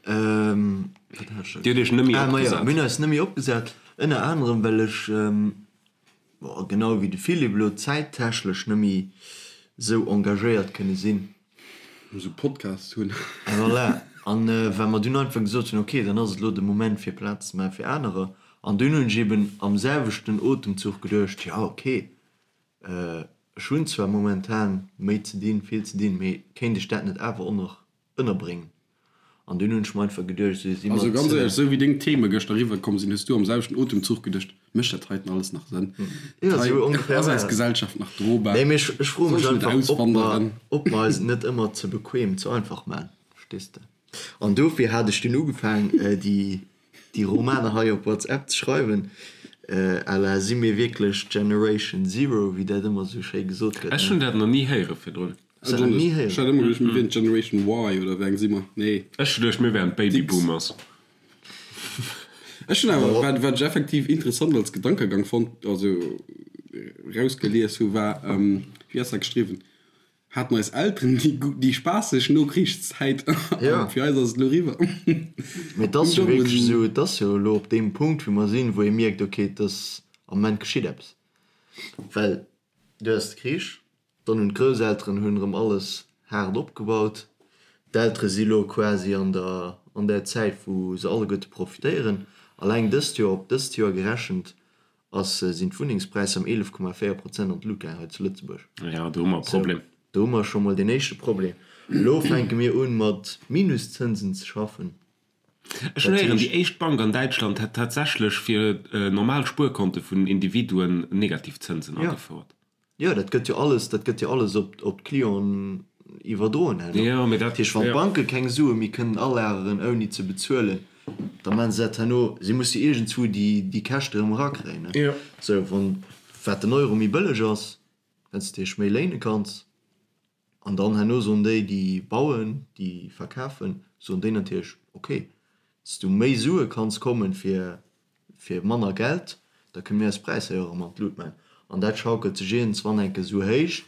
Ähm, wat hat ech da Dir hutt iech nëmme Ah, ma jo, opgesat. mir hunn eis nëmme opgesat, ënner anerem well ech, bon, genau wéi de Philippe elo, zäittechlech nëmme sou engagéiert kënne sinn. Esou Podcasts hunn. Voilà. An well mer dunn einfach gesot hunn, ok, dann ass et elo de Moment fir Plaz ze maache fir anerer. An dunn hunn ech eben am selwechten Otemzuch geduecht, jo, ok, Ech hunn zwar momentan méi ze dinn, vill ze dinn, mee kéint ech dat net awer och nach ënnerbréngen? An dunn hunn ech mer einfach geduecht, esou si Also mat. ganz éierlech, esou wéi deng Theme gëschter eriwwer komm sinn, hues du am selwechten Otemzuch geduecht, mécht dat heiten alles nach Sënn? Jo, Hei esou ongeféier ass war eis et. Gesellschaft nach drobar? Nee, mee ech, ech froe Soll mech ech net einfach, ob mer, auswanderen? ob mer eis et net ëmmer ze bequem, ze einfach maachen, verstees de? An dofir hat ech dunn ugefaang, déi Déi Romaner hei op WhatsApp ze schreiwen, à la si mir wierklech Generation Zero, wéi dat ëmmer esou schéi gesot gëtt, Ech ne? hunn dat nach ni héiere virdrun. Hues dat nach ni Ech héieren? hat ëmmer geduecht, mir wieren d'Generation Y, oder wéi eng si mer? Nee. Ech hu geduecht, mir wären d'Baby D'X. Boomers. Ech hunn awer, wat, wat ech effektiv interessant als Gedankegang fonnt, also rausgelies hu, war, wéi ass dat geschriwwen? Haten eis Elteren déi déi spaasseg Nokrichszäit Ja. an fir eis ass et elo eriwwer. Mee et ass jo wierklech esou, et ass jo elo op deem Punkt wou mer sinn, wou ee mierkt, ok, et ass am Moment geschitt eppes. Well du has de Krich, dann hunn d'Grousselteren hunn erëm alles haart opgebaut, d'Eltere si elo quasi an der an där Zäit wou se alleguerte profitéieren. Alleng dëst Joer, op dëst Joer gerechent, ass, sinn d'Wunnengspräisser ëm 11,4 Prozent an d'Lut gaang hei zu Lëtzebuerg. Jo, do hu mer e Problem. Sou, do hu mer scho mol deen éischte Problem. Elo fänke mir un, mat Minuszënsen ze schaffen. Ech hunn héieren, déi éischt Bank an Däitschland hätt tatsächlech fir normal Spuerkonte vun Individuen negativ Zënsen agefouert. Jo, dat gëtt jo alles, dat gëtt jo alles op, op d'Clienten iwwerdroen herno. Jo, mee dat, Dat heescht, wann jo. d'Banke keng Sue méi kënnen alageren ouni ze bezuelen, da maachen se dat herno, si musse iergendzwou déi, déi Käschte erëm erakréien, ne? Jo. Sou, wann, wat den Euro méi bëlleg ass, Well s de dech méi léine kanns. An dann herno soen déi, déi bauen, déi verkafen, soen déi natierlech, ok, s du méi Sue kanns kommen fir fir manner Geld, da kënne mir eis Präisser jo erëm an d'Lut maachen. An dat schaukelt sech iergendswann eng Kéier esou héich,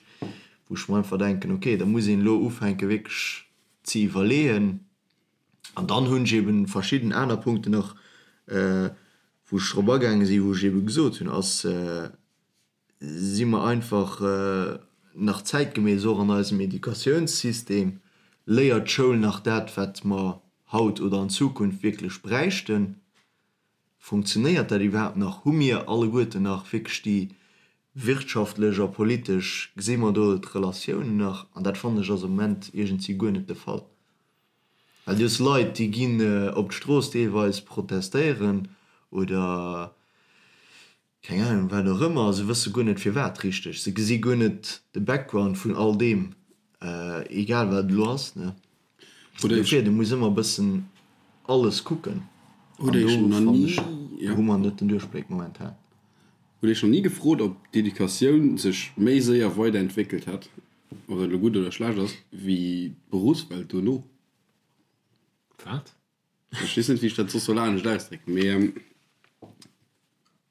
wou ech mer einfach denken, ok, da muss een elo ufänke wierklech ze iwwerleeën. An dann hunn ech eben verschidden aner Punkten nach, wou ech drop agaange sinn, wou ech ebe gesot hunn, ass, si mer einfach nach zäitgemäss och an eisem Educatiounssystem? Léiert d'Schoul nach dat, wat mer haut oder an Zukunft wierklech bräichten? Funktionéiert dat iwwerhaapt nach? Hu mir alleguerten nach wierklech déi wirtschaftlech a politesch, gesi mer do d'Relatiounen nach? An dat fannen ech ass am Moment iergendwéi guer net de Fall. Well du hues Leit, déi ginn op d'Strooss deelweis protestéieren oder keng Ahnung wat och ëmmer, se wësse guer net firwat richteg, se gesi guer net de Background vun all deem, egal wat et elo ass, ne. Dofir, du muss ëmmer e bëssen alles kucken an do fannen ech, hu mer net den Duerchbléck momentan. Hutt Iech nach ni gefrot, ob d'Educatioun sech méi séier weiderentwéckelt hätt, ob dat elo gutt oder schlecht ass, wéi d'Beruffswelt dono? Wat? Ech weess net, wéi ech dat soss soll anescht ausdrécken, mee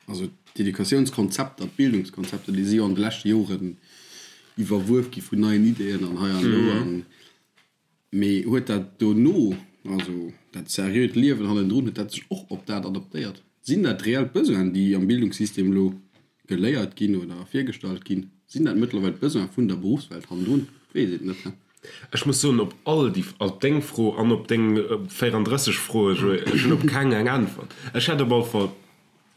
also d'Educatiounskonzepter, d'Bildungskonzepter, déi si jo an de leschte Joren iwwerwuef gi vun neien Ideeën an hei an do. An mee huet dat dono, also dat seriöt Liewen hannendrun, huet dat sech och op dat adaptéiert? Sinn dat reell Besoinen, déi am Bildungssystem elo geléiert ginn oder virgestallt ginn? Sinn dat mëttlerweil d'Besoine vun der Beruffswelt hannendrun? Weess et net. Ech muss soen, op all déi, op deng Fro an op deng 34 Froe, Joé, ech hunn op keng eng Äntwert. Ech hätt op alle Fall,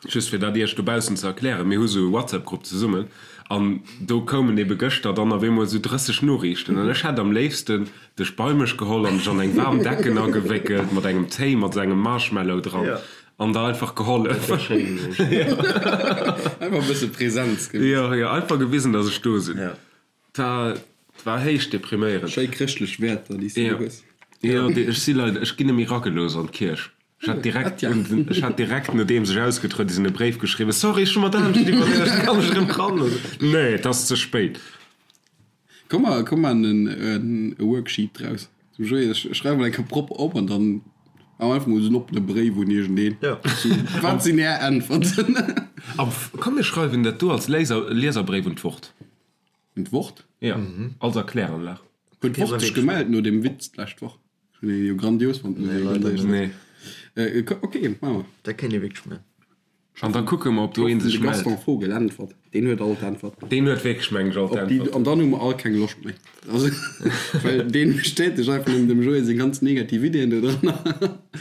just fir dat Iech dobaussen ze erklären, mir hu sou e WhatsApp-Grupp zesummen an do koumen ebe gëschter dann op eemol sou 30 Noriichten an ech hätt am léifsten dech bei mech geholl an dech an eng waarm Decken agewéckelt mat engem Téi mat sou engem Marshmallow dran An der einfach gehollef. Dat wär schéin gewiescht. Einfach e bësse Präsenz gewisen. Jo, jo, einfach gewisen, dass ech do sinn. Ja. Dat war héich depriméierend. Schéi chrëschtlech Wäerter, déi s du do hues. Jo, jo, ech si leider, ech ginn net méi ragelooss an d'Kierch. Ech hat direkt, ech hat direkt nodeems ech ausgetruede sinn, e Bréif geschriwwen, Sorry, ech hu mer d'anescht iwwerluecht, kann ech erëm ran? Nee, et ass ze spéit. Komm mer, komm mer en e Worksheet draus. Zum Joé, ech schreiwen mol eng Kéier propper op an dann maache mer einfach mol esou en oppene Bréif un iergendeen. Jo. Wat sinn Är Äntwerten? A komm mir schreiwen dat do als Léiser, Lieserbréif un d'Wort. Un d'Wort? Jo, als Erkläranlag. Huet d'Wort sech gemellt no deem Witz d'lescht Woch? Ech hunn dee jo grandios fonnt, muss ech Nee, leider net. Nee. Ok, maache mer. Dat kéint ee wierklech maachen. An da kucke mer, ob do een De sech mellt. Gaston Vogel äntwert. Deen huet all d'Äntwerten. Deen huet wierklech, mengen ech, all Op déi, d'Äntwerten. an dann hu mer all keng Loscht méi. Also, well deen bestätegt einfach nëmmen dem Joé seng ganz negativ Ideeën do dran.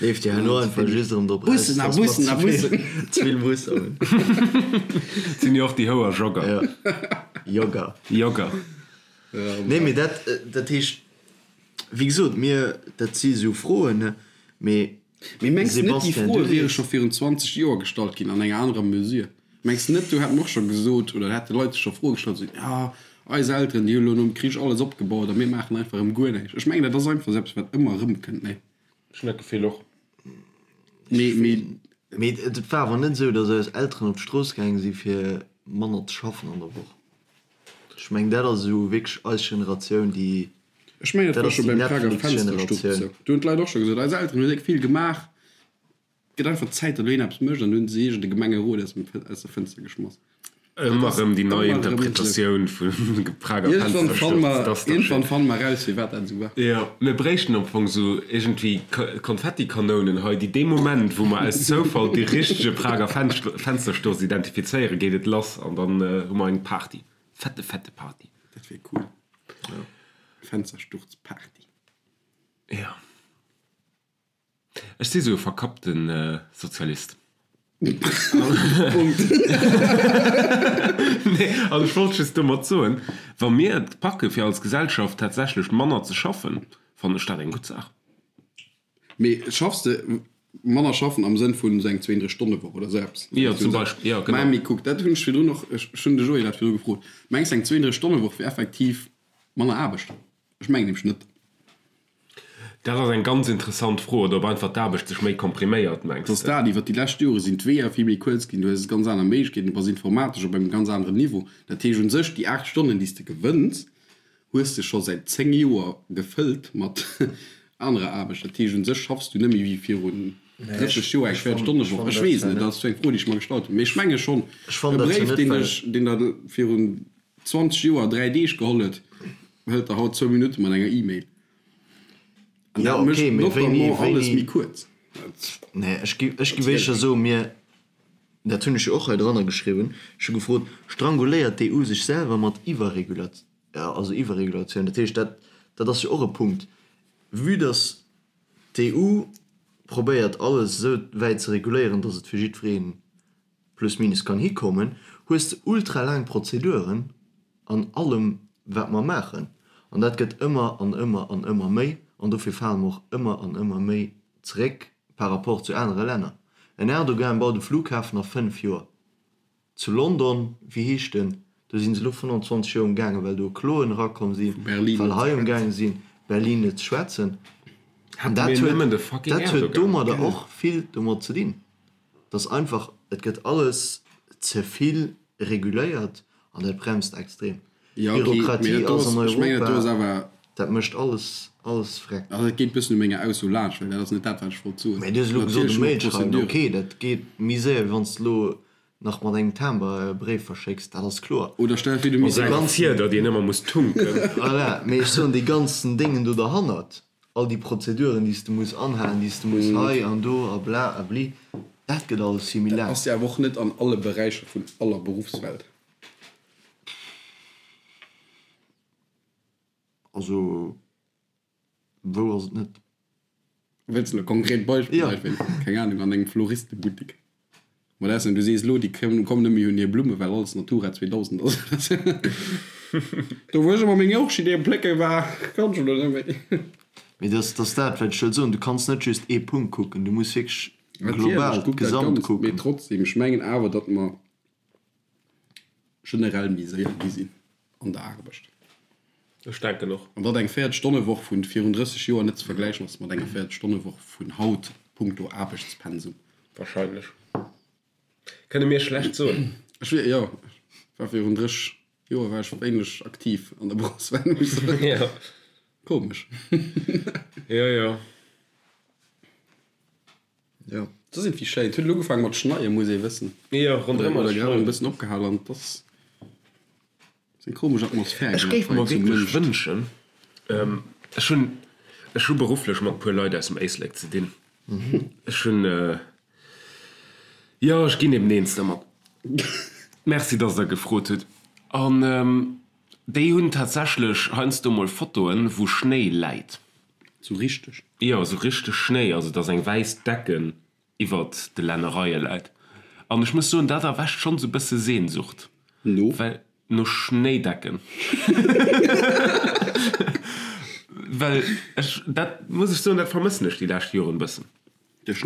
Leeft jo herno einfach just erëm drop eraus, dass a mer Bussen a ze vill, Bussen. ze vill Busser hunn. Et sinn jo och déi Houer Jogger. Jo, Jogger. Jogger. Nee, mee dat, dat heescht, wéi gesot, mir, dat si sou Froen, ne, mee Mee mengs de net, déi Sebastian, Froe du wiere sees. scho virun 20 Joer gestallt ginn an enger anerer Mesure? Mengs de net, do hätten och scho gesot oder hätte Leit sech scho Froe gestallt, esou, jo, eis Elteren, déi hu lo nom Krich alles opgebaut a mir maachen einfach erëm guer näischt. Ech mengen, dat ass einfach esou eppes, wat ëmmer erëmkënnt, nee? Ech hunn dat Gefill och. Mee, mee. Mee et war awer net esou, datt eis Elteren op d'Strooss gaange si fir manner ze schaffen an der Woch. Ech mengen, dat ass esou wierklech eis Generatioun, déi Ech mengen, dat Dat war ass scho déi beim Prager Fenstersturz Netflix-Generatioun. esou. Do hunn d'Leit och scho gesot, eis Elteren hunn déck vill gemaach, et gëtt einfach Zäit, datt elo een eppes mécht. An du hunn se iergend e Gemengerot aus dem, aus der Fënster geschmass. Dat Ëmmer ass erëm déi nei ëmmer erëm esou. Interpretatioun vum Prager Iergendwann fanne Fenstersturz. mer, Dat ass dach iergendwann schéin. fanne mer eraus, firwat dat esou war. Jo, mir bréichten am Fong esou iergendwéi Konfettikanounen hei, déi dee Moment, wou mer aus Zoufall dee richtege Prager Fenstersturz identifizéieren, geet et lass an dann hu mer eng Party. Fette, fette Party. Dat wier cool. Fenstersturz-Party. Jo. Ech si sou e verkappte Sozialist. Punkt. Nee, also ech wollt just domat soen, wa mir et packe fir als Gesellschaft tatsächlech manner ze schaffen, fannen ech dat eng gutt Saach. Mee schaffs de manner schaffen am Sënn vun esou eng 32 Stonne Woch oder esou eppes? Jo, zum Beispill, jo, genau. Mä mee kuck, dat hunn ech virdrun och, ech hunn de Joé dat virdru gefrot, Mengs de eng 32 Stonne Woch wier effektiv manner Aarbecht? Ech mengen nämlech net. Dat ass eng ganz interessant Fro. Oder ob einfach d'Aarbecht sech méi kompriméiert, mengs de? Dass de? Dat, iwwer déi lescht Jore sinn d'Weeër vill méi kuerz ginn, du hues ganz aner Méiglechkeeten, du bass informatesch op engem ganz aneren Niveau. Dat heescht un sech, déi 8 Stonnen, déi s de gewënns, hues de scho säit 10 Joer gefëllt mat anerer Aarbecht. Dat heescht un sech schaffs du net méi wéi virun 30 Joer eng 40 Stonne Woch. Ech weess net, dat ass eng Fro, déi ech mer gestallt hunn, mee ech menge schonn, e Bréif, deen dech, deen der virun 20 Joer 3 Deeg geholl huet, hëlt der haut zwou Minutte mat enger E-Mail. An Ja, dat mécht okay, mee wéini, notamment alles wéini. méi kuerz. Nee, ech gi, ech gi wéischer soen, mir, dat hunn ech jo och hei dranner geschriwwen, ech hu gefrot, Stranguléiert d'EU sech selwer mat Iwwerregula-, also Iwwerregulatioun? Dat heescht, dat, dat ass jo och e Punkt, vue dass d'EU probéiert alles esou wäit ze reguléieren, dass et fir jiddweree plus minus kann hikommen, hues de ultra laang Prozeduren an allem wat mer maachen. An dat gëtt ëmmer an ëmmer an ëmmer méi an dofir fale mer och ëmmer an ëmmer méi zeréck par rapport zu anere Länner. En Erdogan baut e Flughafen a 5 Joer. Zu London, wéi heescht en, do si se elo 25 Joer umgaangen, well do Kloen erakomm sinn, well hei umgaange sinn, Berlin net ze schwätzen. An dat huet, dat huet domadder och vill domat ze dinn. Dass einfach, et gëtt alles ze vill reguléiert an dat bremst extrem. D'Bürokratie ass an Europa, dat mécht alles, alles freck. Also et geet bëssen u menger Ausso laanscht, well dat ass net dat, wat ech wollt soen. Mä du hues elo gesot, e Mail schreiwen, ok, dat geet méi séier, wéi wann s de elo nach mat engem Timber e Bréif verschécks, dat ass kloer. Oder stell der vir, du misst e ganzen. Fieder, deen ëmmer muss tunken. Voilà, mee ech soen, dee ganzen Déngen do derhannert, all déi Prozeduren, déi s de muss anhalen, déi s de muss hei an do a bla a bli, dat gëtt alles vill méi Dat laang. ass jo awer och net an alle Beräicher vun aller Beruffswelt. Also, wou ass et net? Wëlls de elo konkret Beispiller? Jo. Keng Ahnung, an engem Floristebuttek. Ma dat ass, du sees elo, déi kommen net méi un hir Blumme well alles Natura 2000 ass. Do wou ech ëmmer meng Orchideeë plécke war, kann ech elo net méi. Mee dat ass dat, wat ech wëll soen, du kanns net just ee Punkt kucken, du muss wierklech global, Natierlech, kuck dat d'Gesamt Ganzt. Mee kucken. trotzdem, ech mengen awer, datt mer generell méi séier gi sinn an der Aarbecht. Ech denken och. An datt eng 40 Stonne Woch vun virun 30 Joer net ze vergläichen ass mat enger 40 Stonne Woch vun haut punkto Aarbechtspensum. Wahrscheinlech. Kënne mir schlecht soen. Ech wier, jo, ech war virun 30 Joer war ech wéineg aktiv an der Berufswelt, muss ech soen. Jo. Komesch. Jo, jo. Jo, dat ass iergendwéi schéin. Et huet elo ugefaange mat schneien, muss ee wëssen. Jo, ronderëm ass Oder grad e bëssen opgehal an et ass eng komesch Atmosphär Ech géif mer wierklech wënschen, ech hunn, ech hu berufflech mat e puer Leit aus dem Éislek ze dinn. Ech hunn, jo, ech ginn eben eens dermat. Merci, dass Der gefrot hutt. An déi hunn tatsächlech heiansdo mol Fotoen, wou Schnéi läit. Sou richteg? Jo, sou richteg Schnéi, also dass eng wäiss Decken iwwert de Lännereie läit. An ech muss soen, dat erwächt schonn sou bësse Sehnsucht. No? Well, no Schnéidecken. Well ech, dat muss ech soen, dat vermëssen ech déi lescht Joren bëssen.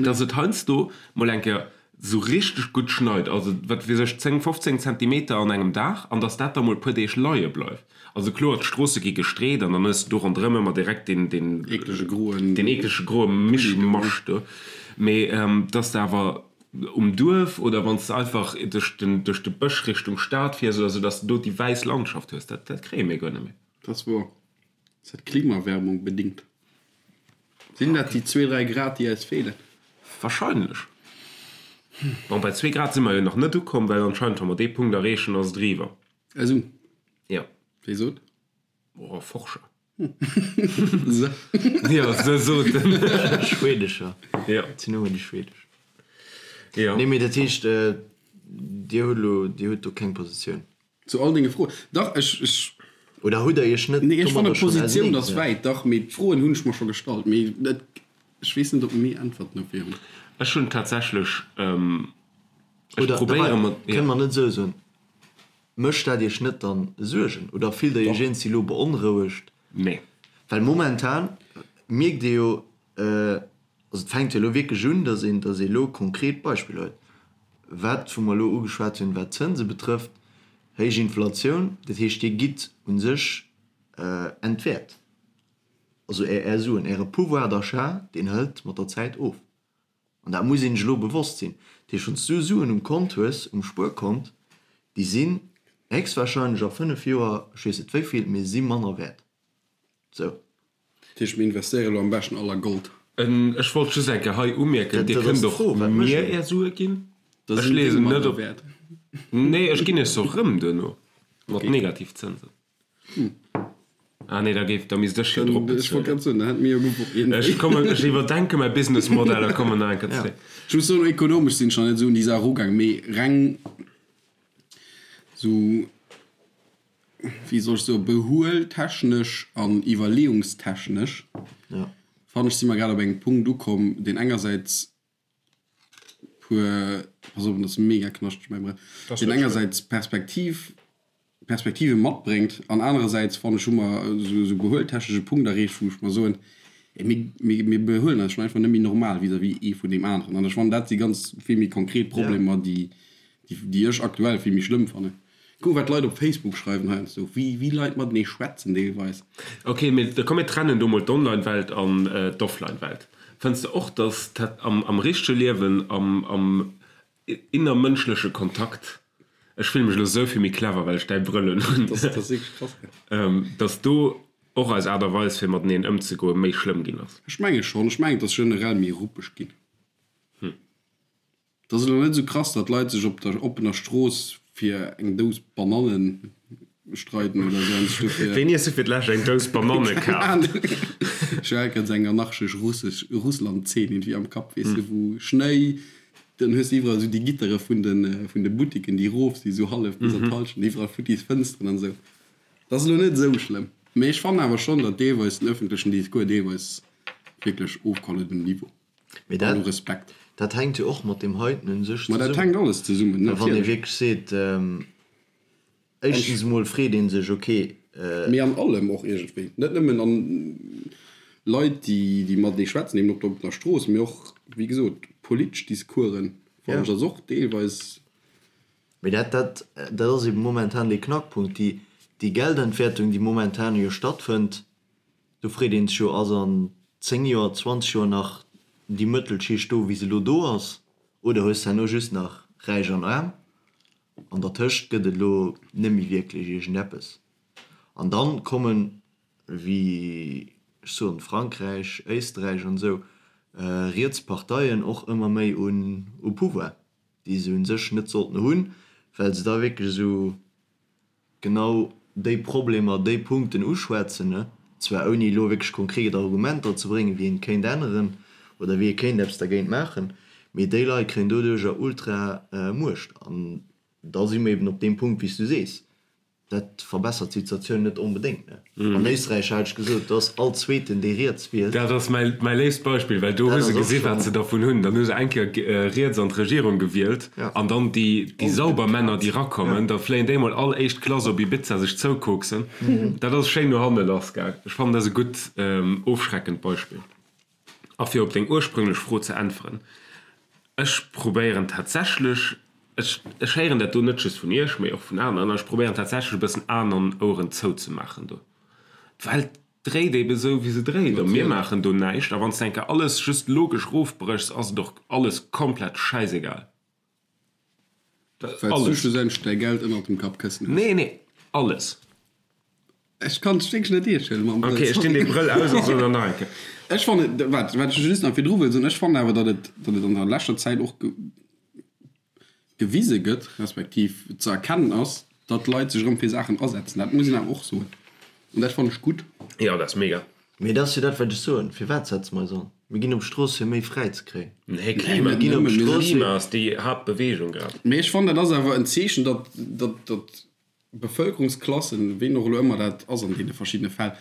Dass et heiansdo mol eng Kéier sou richteg gutt schneit, also wat weess ech, 10, 15 Zentimeter an engem Dag, an dass dat da mol e puer Deeg leie bleift. Also kloer, d'Stroosse gi gestreet an dann hues de do ronderëm ëmmer direkt deen, deen eeklege groen, deen eeklege groe Mischmasch do. Mee dass de awer um Duerf oder wann s de einfach duerch den, duerch de Bësch Richtung Stad fiers oder sou, dass de do déi wäiss Landschaft hues, dat, dat kréie mir guer net méi. Dat ass wouer. Ass dat Klimaerwärmung bedingt? Sinn dat déi zwee, dräi Grad, déi eis feelen? Wahrscheinlech. Bon, bei zwee Grad si mer jo nach net ukomm, well anscheinend, wa mer dee Punkt erreechen, ass et eriwwer. Esou? Jo. Wie sot? Oh, Forscher. Se. Jo, se soten. Schwedescher. Jo. Et sinn ëmmer déi schwedesch. Jo. Nee, mee dat heescht, Dir hutt elo, Dir hutt do keng Positioun? Zu all denge Froen. Dach, ech, ech. Oder hutt Der Iech net Nee, ech fanne domadder schonn Positioun ass auserneegesat? wäit, dach, mee d'Froen hunn ech mer scho gestallt, mee et, ech weess net, ob mir Äntwerten dofir hunn. Ech hunn tatsächlech, ech Oder, probéiere wei, mat, kënne jo. mer net esou soen, Mécht dat Iech net dann Suergen oder fillt Der Iech Dach. iergendwéi elo beonrouegt? Nee. Well momentan mierkt ee jo, Also et fänkt jo elo wierklech un, datt een, datt ee elo konkret Beispiller huet. Wat, wou mer elo ugeschwat hunn, wat d'Zënse betrëfft, héich Inflatioun, dat heescht, Dir gitt u sech entwäert. Also Är, Är Suen, Äre Pouvoir d'achat, deen hëlt mat der Zäit of. An dat muss een sech elo bewosst sinn. Dat heescht, wann s du Suen um Kont hues, um Spuerkont, déi sinn héchstwahrscheinlech a 5 Joer, ech weess net wéi vill, mee se si manner wäert. Sou. Dat heescht, mir investéiere elo am beschten all a Gold. Ech wollt just eng Kéier hei umierken, Dir kënnt och mir Är Sue ginn. Ech leeë se net op. Nee, ech ginn Iech se och rëm duerno mat Negativzënsen. Ah nee, da géif, da misst ech jo drop bezuelen. Ech kommen, ech iwwerdenke mäi Businessmodell a kommen nach eng Kéier zréck. Ech muss soen, ökonomesch sinn ech nach net esou un déi Saach erugaang, mee reng esou, wéi soll ech soen, behueltechnesch an iwwerleeungstechnesch fannen ech, si mer grad op engem Punkt ukomm, deen engersäits puer, pass op, dat ass mega knaschteg mäi Brëll, deen engersäits Perspektiv, Perspektive matbréngt an anerersäits fannen ech hu mer esou esou behueltechnesch e Punkt erreecht, wou ech mer soen, ey mir, mir, mir behuelen eis schonn einfach net méi normal vis-à-vis ee vun deem aneren an ech fannen dat si ganz vill méi konkret Problemer, déi, déi, déi ech aktuell vill méi schlëmm fannen. Kuck wat d'Leit op Facebook schreiwen heiansdo, wéi, wéi Leit matenee schwätzen deelweis. Ok, mee da komm mir trennen do mol d'Online-Welt an d'Offline-Welt. Fënns de och, dass dat am, am richtege Liewen, am, am innermënschleche Kontakt, ech fille mech elo esou vill méi clever, well ech däi Brëll un hunn, Dat ass wierklech krass, gell? dass do och eis Aart a Weis fir mateneen ëmzegoe méi schlëmm ginn ass? Ech menge schonn. Ech mengen, et ass generell méi ruppeg ginn. Et ass elo net esou krass, datt Leit sech op der oppener Strooss fir eng Dous Banannen streiden oder esou an sech dofir. Wéini hues du fir d'lescht eng Dous Bananne Keng kaaft? Ahnung. Ech hu grad esou eng anarchesch russesch Russland-Zeen iergendwéi am Kapp, weess de, wou Schnéi, dann hues de iwwerall esou déi Gittere vun de vun de Buttiken, déi erof si sou hallef bis an d'Hallschent, iwwerall futtis Fënsteren an esou. Et ass elo net esou schlëmm, mee ech fannen awer schonn, datt deelweis den ëffentlechen Discours deelweis wierklech ofkoll huet um Niveau. Mee dat, dat, Respekt. Dat hänkt jo och mat deem heiten un sech Ma dat zesummen. hänkt alles zesummen, Well wann ee natierlech. wierklech seet, éischtens emol freet ee sech, ok, Mee an allem och iergendwéi. Net nëmmen an Leit, déi, déi matenee schwätzen, eben op der oppener Strooss, mee och, wéi gesot, politesch Discoursen, fannen ja. ech, ass och deelweis. Mee dat, dat, dat ass eben momentan dee Knackpunkt, déi, déi Geldentwertung, déi momentan jo stattfënnt, Do freet een sech jo, ass an 10 Joer, 20 Joer nach déi Mëttelschicht do, wéi se elo do ass, oder hues de herno just nach Räich an Aarm? An dertëscht gëtt et elo net méi wierklech iergendeppes. An dann kommen, wéi ech soen, Frankräich, Éisträich an esou, riets Parteien och ëmmer méi un Pouvoir, déi se u sech net sollten hunn, well se da wierklech esou genau déi Problemer, déi Punkten uschwätzen, zwar ouni elo wierklech konkret Argumenter ze bréngen, wéi een et kéint änneren oder wéi ee kéint eppes dergéint maachen, mee déi Leit kréien doduercher ultra Muecht. An da si mer eben op deem Punkt, wéi s du sees, dat verbessert d'Situatioun net onbedéngt. An Éisträich hat ech gesot, do ass all Zweeten, dee riets wielt. Dat ass mäi léifst Beispill, well do hu se gesi wat se dervun hunn. Dann hu se eng Kéier riets an d'Regierung gewielt an dann déi sauber Männer, déi rakommen, da fléien déi mol all éischt Klass op Ibiza sech zoukoksen. Dat ass schéin no hanne lassgaang. Ech fannen, dat ass e gutt ofschreckend Beispill. A fir op deng ursprünglech Fro ze äntweren, Ech probéieren tatsächlech, ech ech héieren dat do net just vun Iech, mee och vun aneren, an ech probéieren tatsächlech e bëssen Aen an Oueren zouzemaachen do. D'Welt dréit ebe sou, wéi se dréit, a mir maachen do näischt. A wann s de eng Kéier alles just logesch erofbréchs, ass et och alles komplett schäisegal. Well s du Alles. schlussendlech däi Geld ënnert dem Kappkëssen hues. Nee, nee, alles. Ech kann dech wierklech net eescht huelen mam Brëll, Ok, ech dinn sorry. dee Brëll aus a soen der nach eng Kéier. Ech fannen, wat, wat ech just nach virdru wëll soen, ech fannen awer, datt et, datt et an der leschter Zäit och ge, gewise gëtt, respektiv ze erkennen ass, datt d'Leit sech erëm fir Saachen asetzen. Dat muss een awer och soen. An dat fannen ech gutt. Jo, dat ass mega. Mee dat ass jo dat, wat ech soen. Firwat setze mer eis an? Mir ginn op d'Strooss, fir méi fräi ze kréien. Nee, Klima, Mir ginn op d'Strooss, fir. Klima ass déi Haaptbeweegung grad. Mee ech fannen, dat ass awer en Zeechen, datt, datt, datt Bevëlkerungsklassen, ween och elo ëmmer dat ass an deene verschiddene Fäll,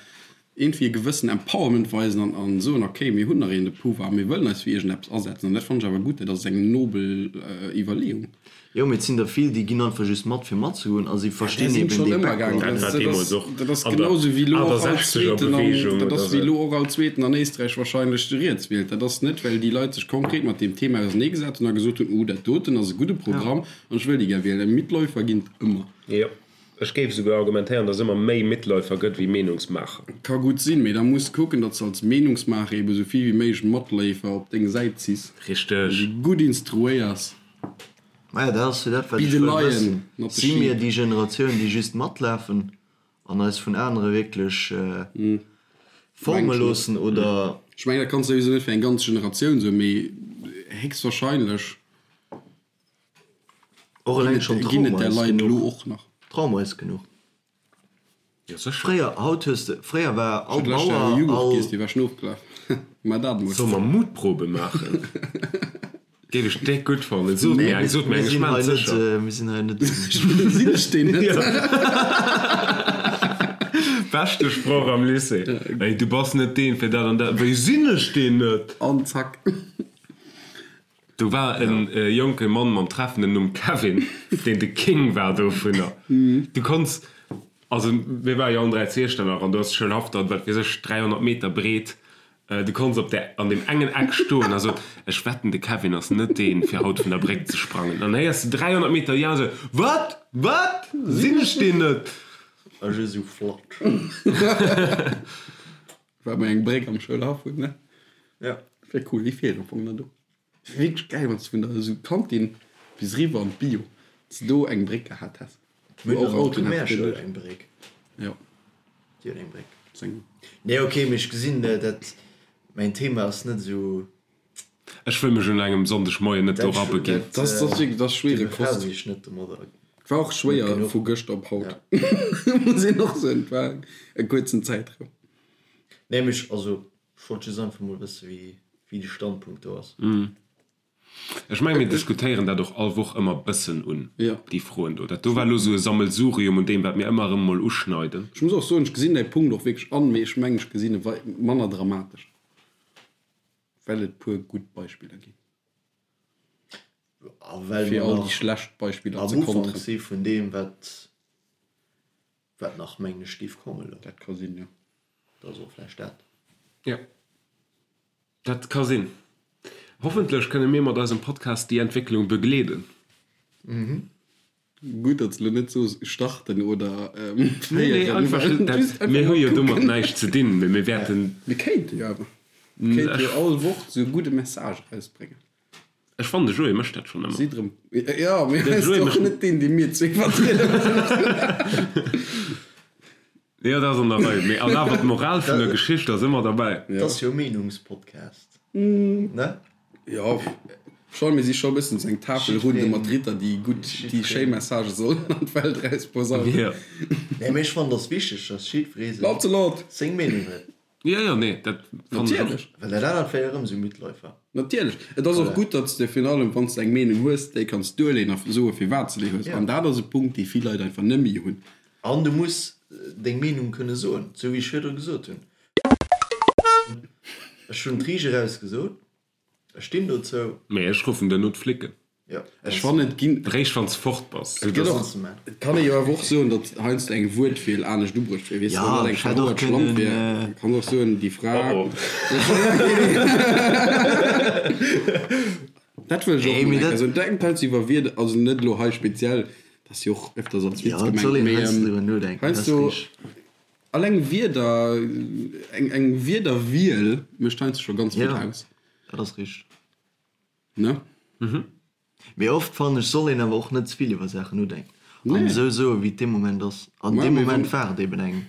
iergendwéi e gewëssen Empowerment weisen an a soen, okay, mir hunn nach een de Pouvoir a mir wëllen eis fir iergendeppes asetzen. An dat fannen ech awer gutt, dat ass eng nobel Iwwerleeung. Jo, mee et sinn der vill, déi ginn einfach just mat fir matzegoen a si Där verstinn sinn eben schonn dee ëmmer gaangen. Background Dat net. war deemools och Dat ass an der genau sou wéi elo och all 68er Zweeten an, Beweegung dat oder ass wéi sou. elo och all Zweeten an Éisträich wahrscheinlech de riets wielt. Dat ass net, well déi Leit sech konkret mat deem Thema auserneegesat hunn a gesot hunn, oh dat doten ass e gudde Programm an ech wëll déi gär wielen. Mitläufer ginn et ëmmer. Jo. Ech géif esouguer argumentéieren, datt et ëmmer méi Mitläufer gëtt wéi Meenungsmaacher. Ka gutt sinn, mee da muss de kucken, datt s de als Meenungsmaacher ebe sou vill wéi méiglech Matleefer op deng Säit ziss. Richteg. An déi gutt instruéiers. Maja, dat ass jo dat, wat Be ech the wëll lion, wëssen. not the Si mir sheep. déi Generatioun, déi just matlafen an eis vun anere wierklech forme Mengen ech net. loossen, oder? Ech mengen, dat kanns de souwisou net fir eng ganz Generatioun soen, mee héchstwahrscheinlech. Och eleng schonn Ginn et Trauma där ass Leit elo genuch. och nach? Trauma ass genuch. Jo, sécher. Fréier, haut hues de, fréier war all Ech hunn d'lescht Joer Bauer, e Jughurt all. giess, dee war schon ofgelaf. Mä dat emol. Solle mer Mutprobe maachen? Géif ech déck gutt fannen. Sot mir eng, sot mir Mir eng, ech sinn maan hei et net, sécher. mir sinn hei net. Sinn ech deen net? Beschte Sproch am Lycée. Ey, du bass net deen fir dat an dat. Wéi sinn ech deen net? An zack. Do war e jonke Mann mam treffenden Numm Kevin, deen de King war dovunner. Du konns, also mir ware jo allen 3 zu Iechternach an do ass d'Schoulhaff dann, wat weess ech, 300 Meter breet. Du konns op där, an deem engen Eck stoen a soen, Ech wetten, de Kevin ass net deen, fir haut vun der Bréck ze sprangen. Dann héiers de 300 Meter ja esou, Wat? Wat? Sinn ech deen net? A just esou flatsch. Well mer eng Bréck am Schoulhaff hunn, ne? Ja. Wär cool, déi feelt am Fong nach do. Wär wierklech gäil, wann s de vun der esou Kantin bis eriwwer an d'Bio, dass de do eng Bréck gehat häss, Mir wou hunn och an der Autoen hätte kënnen Primärschoul duerch. eng Bréck. Jo. Déi huet eng Bréck. Seng. Nee, ok, mee ech gesinn, dat mäin Thema ass net esou. Ech wëll mech un engem Sonndegmoien net do Dat, rabeginn. dat, Dat ass, dat ass wierklech, dat ass do schwiereg Kost. befasse ech net domadder. War och Net schwéier genuch. vu gëschter op haut, Ja. muss een och soen. Et war e kuerzen Zäitraum. Nee, mee ech, also, ech wollt just einfach mol wësse wéi, wéi de Standpunkt do ass. Ech menge mir diskutéieren dat och all Woch ëmmer bëssen un, Ja. déi Froen do. Dat do war elo esou e Sammelsurium un deem, wat mir ëmmer erëm mol uschneiden. Ech muss och soen, ech gesinn däi Punkt och wierklech an, mee ech mengen, ech gesinn e wei manner dramatesch, well et puer gutt Beispiller ginn. A well Fir mer all déi nach schlecht Beispiller am ze Ufank konteren. si vun deem, wat, wat nach, mengen ech, géif kommen elo. Dat ka sinn, jo. Dat ass och vläicht dat. Jo, dat ka sinn. Hoffentlech kënne mir mat eisem Podcast déi Entwécklung begleeden. Gutt, datt s de elo net soos starten oder Nee, nee, féieren. einfach just dat. Just einfach Mir hu mol jo domat kucken. näischt ze dinn, mee mir wäerten. Mir kéinte jo awer. Mir kéinte jo all Woch esou e gudde Message erausbréngen. Ech fannen, de Joé mécht dat schonn ëmmer. Si drëm. Jo, mee De hie ass Joé och mécht. net deen, dee mir zwee vertrieden. Jo, dat ass an der Rei. Mee an awer d'Moral vun der Geschicht ass ëmmer derbäi. Dat ass jo e Meenungspodcast, ne? Jo, schon, mir si scho e bëssen esou eng Tafelrunde mat Ritter, déi gutt, déi schéi Messagë sollen an d'Welt erausposaunen. Jo. Nee, mee ech fannen, et ass wichteg, dass jiddweree seng, Lancelot! seng Meenung huet. Jo, jo, nee, dat fannen ech och. Natierlech. Well dat anert wär jo erëm esou Mitläufer. Natierlech. Et ass och gutt, datt s de virun allem, wann s de eng Meenung hues, déi kanns duerleeën a soe firwat s de déi hues. Ja. An dat ass e Punkt, dee vill Leit einfach net méi hunn. An du muss deng Meenung kënne soen, esou wéi ech virdru gesot hunn. Ech hunn d'Riicht eraus gesot, ech stinn dozou. Mee ech ruffen duerno d'Flicken. Jo, Ech fannen, et ginn. Réischt wann s fort bass. Et gëtt och, et kann ee jo awer och soen, datt heiansdo eng Wuertwiel anescht ubruecht wier. Weess de, wann dat eng ech hätt och verhouert Schlamp kënnen, wier, kann och soen, déi Fra. Oh oh. Dat wëll ech och Nee, mol mee eng Kéier dat- soen. Denkt heiansdo iwwer Wierder, also net elo hei speziell, dat ass jo och öfters als Witz Jo, et soll gemengt, een mee heiansdo driwwer nodenken, dat ass heiansdo richteg. alleng Wierder, eng, eng Wierderwiel mécht heiansdo scho ganz vill Ja, aus, dat ass richteg. ne? Mee oft fannen ech soll een awer och net ze vill iwwer Saachen nodenken an Nee. esou soe wéi et dee Moment ass. An Ma deem mee Moment wann- war et eben eng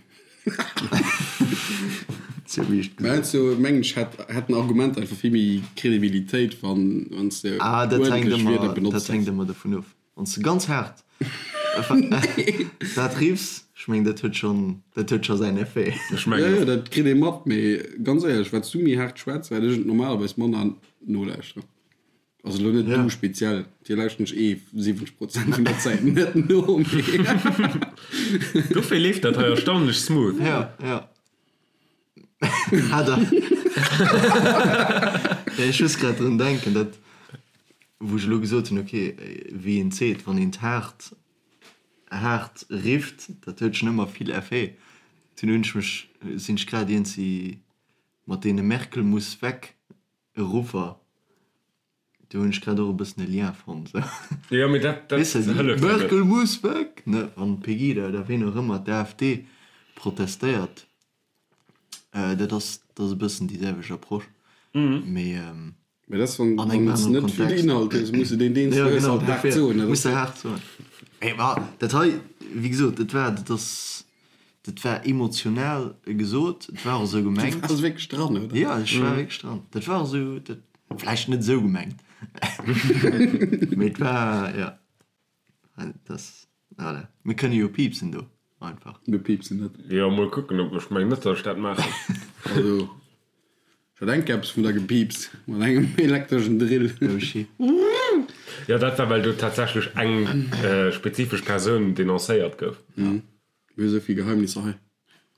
sou wéi ech et Mä gesot heiansdo mengen ech hätt hätt en Argument einfach vill méi Credibilitéit wann wann s de Ah dat hänkt uerdentlech Wierder ëmmer dat benotzt hänkt häss. ëmmer dovun of. Wann s de ganz haart dat riffs, ech mengen dat huet schonn dat huet scho säin Effet. Ech Jo mengen jo och. dat kritt ee mat, mee ganz éierlech wat s du méi haart schwätz wat ech et normalerweis manner nolauschteren. Also elo net du speziell, dir lauschteren ech eh 70 Prozent vun der Zäit net no, mee. Dofir leeft dat hei erstaunlech smooth. Ja, ja. Hat er. Ja, ech muss grad drun denken, dat wou ech elo gesot hunn, okay, wéi een seet, wann een d'haart haart rifft, dat huet schon ëmmer vill Effet. Dunn hunn ech mech, sinn ech grad iergendwéi mat deene Merkel muss weg Ruffer. Do hunn ech grad och e bëssen e Lien fonnt, sou. Jo, mee dat, dat Weess de, déi hëlleft jo net. Merkel muss weg, ne, wann d'Pegida oder ween och ëmmer, d'AfD, protestéiert, dat ass, dat ass e bëssen déi selwecht Approche, mee Mee dat ass, wann, an engem wann s anere net vill Kontext. Inhalt hues, muss de deen, deen s Jo, du hues, genau, halt haart dofir soen, muss oder? de haart soen. Mee ma dat hei, wéi gesot, dat war, dat ass, dat war emotional gesot, et war och esou Du gemengt. waars wierklech dran, oder? Jo, ech war wierklech dran. Dat war och esou, dat, vläicht net esou gemengt, mee et war, jo, dat ass, voilà. Mir kënne jo piipsen do einfach. Mir piipsen net. Jo, mol kucken, ob, ech mengen net, datt ech dat maachen. Also, ech hat enk eppes vun der gepiipst mat engem elektreschen Drill. Oh shit. Jo, dat war, well do tatsächlech eng spezifesch Persoun denoncéiert gouf. Mir hu sou vill Geheimnisser hei.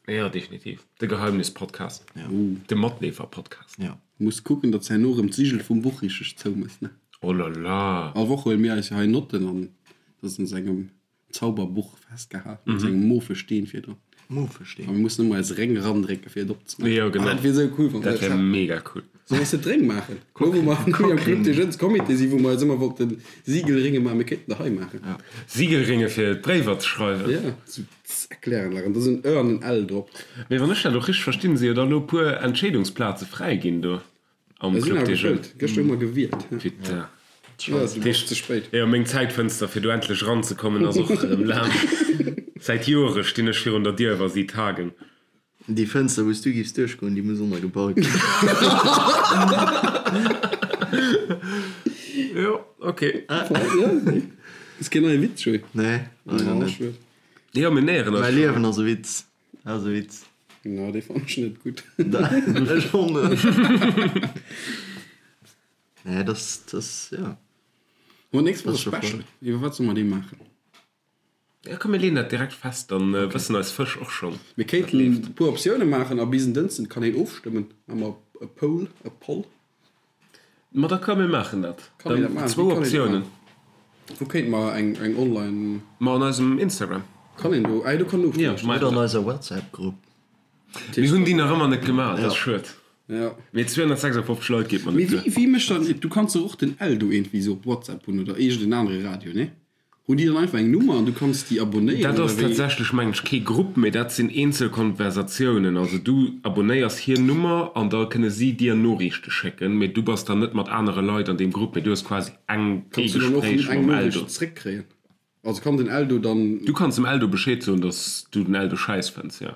Jo, definitiv. De Geheimnis-Podcast. Ja. De Matleefer-Podcast. Ja. Muss kucken, datt s herno erëm d'Sigel vum Buch richteg zoumëss, ne? Oh la la. All Woch huele mir eis jo hei Notten an dat ass an esou engem Zauberbuch festgehalen, mat esou engem mauve Steen virdrun. Mauve Steen. A mir mussen ëmmer eis Réng erandrécke fir et opzemaachen. Jo, genau. Ah, dat wier esou cool, wann Dat wär mega cool. Solle mer se d'Réng maachen? Lo wou mer am Club des Jeunes Comité sinn, wou mer eis ëmmer wollten Siegelringe maachen, mir kéinten der hei maachen. Siegelringe fir d'Bréiwer ze schreiwen. Ja, sou z'erklären. An da sinn en Ë an en L drop. Mee wann ech dat och richteg verstinn, si jo da elo e puer Entscheedungsplaze fräi ginn do am Sinn Club awer des Jeunes. gefëllt. Gëschter hu mer gewielt. Putain. Ja, du bass ze spéit. Jo, meng Zäitfënster fir do endlech eranzekommen ass och erëm laang. Säit Joere stinn ech virun der Dier wa si tagen. Déi Fënster wou s du giffs duerchgoen, déi muss ënnergebaut ginn. Jo, ok. Ass keen neie Witz, Joé? Nee, leider net. Jo, mir näheren eis Mäi schonn. Liewen ass e Witz. Ass e Witz. Na, dee fannen ech net gutt. Ech och net. Nee, das, das, ja. Mo nächst Woch Das e ist schon Special. Iwwer wat solle mer dee maachen? Ja, komm, mir leeën dat direkt fest, dann wëssen eis Fësch och schonn, Mir wat kéinten leeft. e puer Optioune maachen a bis en Dënschden kann een ofstëmmen. Maache mer e Poll, e Poll. Ma da komm, mir maachen dat. Kann een dat Dann maachen? zwou Wéi kann een dat Optiounen. maachen? Wou kéinte mer eng, eng online. Ma an eisem Instagram. Kann een do, ah jo, do kann een Ja, ofstëmmen. maach Oder an dat. eiser WhatsApp-Grupp. Mir hunn déi nach ëmmer net gemaach, dat ass schued. Ja. Mee 256 Leit geet mer Mee net wéi, duer. wéi mécht dann, du kanns dach och den Eldo iergendwéi sou op WhatsApp hunn oder iergend en anere Radio, nee? Hunn déi dann einfach eng Nummer an du kanns déi abonéieren Dat oder ass wéi? tatsächlech, mengen ech, kee Grupp, mee dat sinn eenzel Konversatiounen. Also du abonéiers hir Nummer an da kënne si dir Noriichte schécken, mee du bass dann net mat anere Leit an deem Grupp, mee du hues quasi eng, ee Kanns du dann och Gespréich eng mam Noriicht Eldo. zréckkréien? Also kann den Eldo dann. Du kanns dem Eldo Bescheed soen, dass du den Eldo schäiss fënns, jo.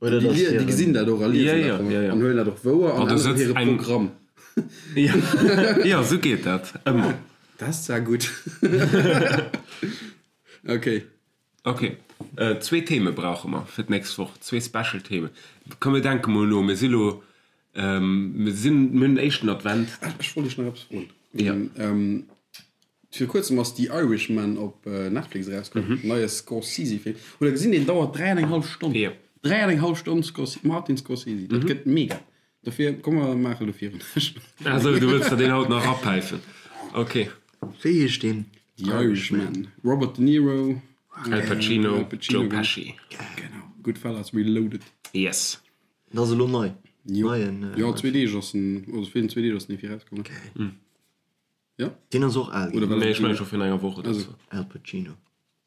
Oder Déi, dass déi hiren. gesinn dat och a liesen Ja, dat ja, ja, ja. an huelen dat och wouer An an do änneren sëtzt hire eng. Programm. Ja, ja, esou geet dat ëmmer. Dat ass zwar gutt. Ok. Ok, zwee Theme brauche mer fir d'nächst Woch, zwee Special Themen. Komm mir denke mol no, mir si lo, mir sinn, mir hunn den éischten Advent. Ah, ech wollt iech nach eppes froen. Ja. Vir kuerzem ass The Irishman op Netflix erauskomm, neie Scorsese-Film. Hutt der gesinn, deen dauert 3 an eng hallef Stonn. Jo. 3 an eng hallef Stonn Scorse, Martin Scorsese, dat gëtt mega. Dofir, komm mer maache lo virun. Ah sou, du wëlls der deen haut nach erapäifen. Ok. Wéi heescht deen? The Irishman, Robert De Niro, Al Pacino, Al Pacino, Joe Pesci. Genau, Goodfellas Reloaded. Yes. Dat ass elo nei. Jo, Neien, jo, zwee Deeg ass en, also virun zwee Deeg ass en effi erauskomm. Okay. Ja? Deen ass och al Oder ginn. war Nee, dat ech mengen scho virun enger Woch oder sou. Al Pacino.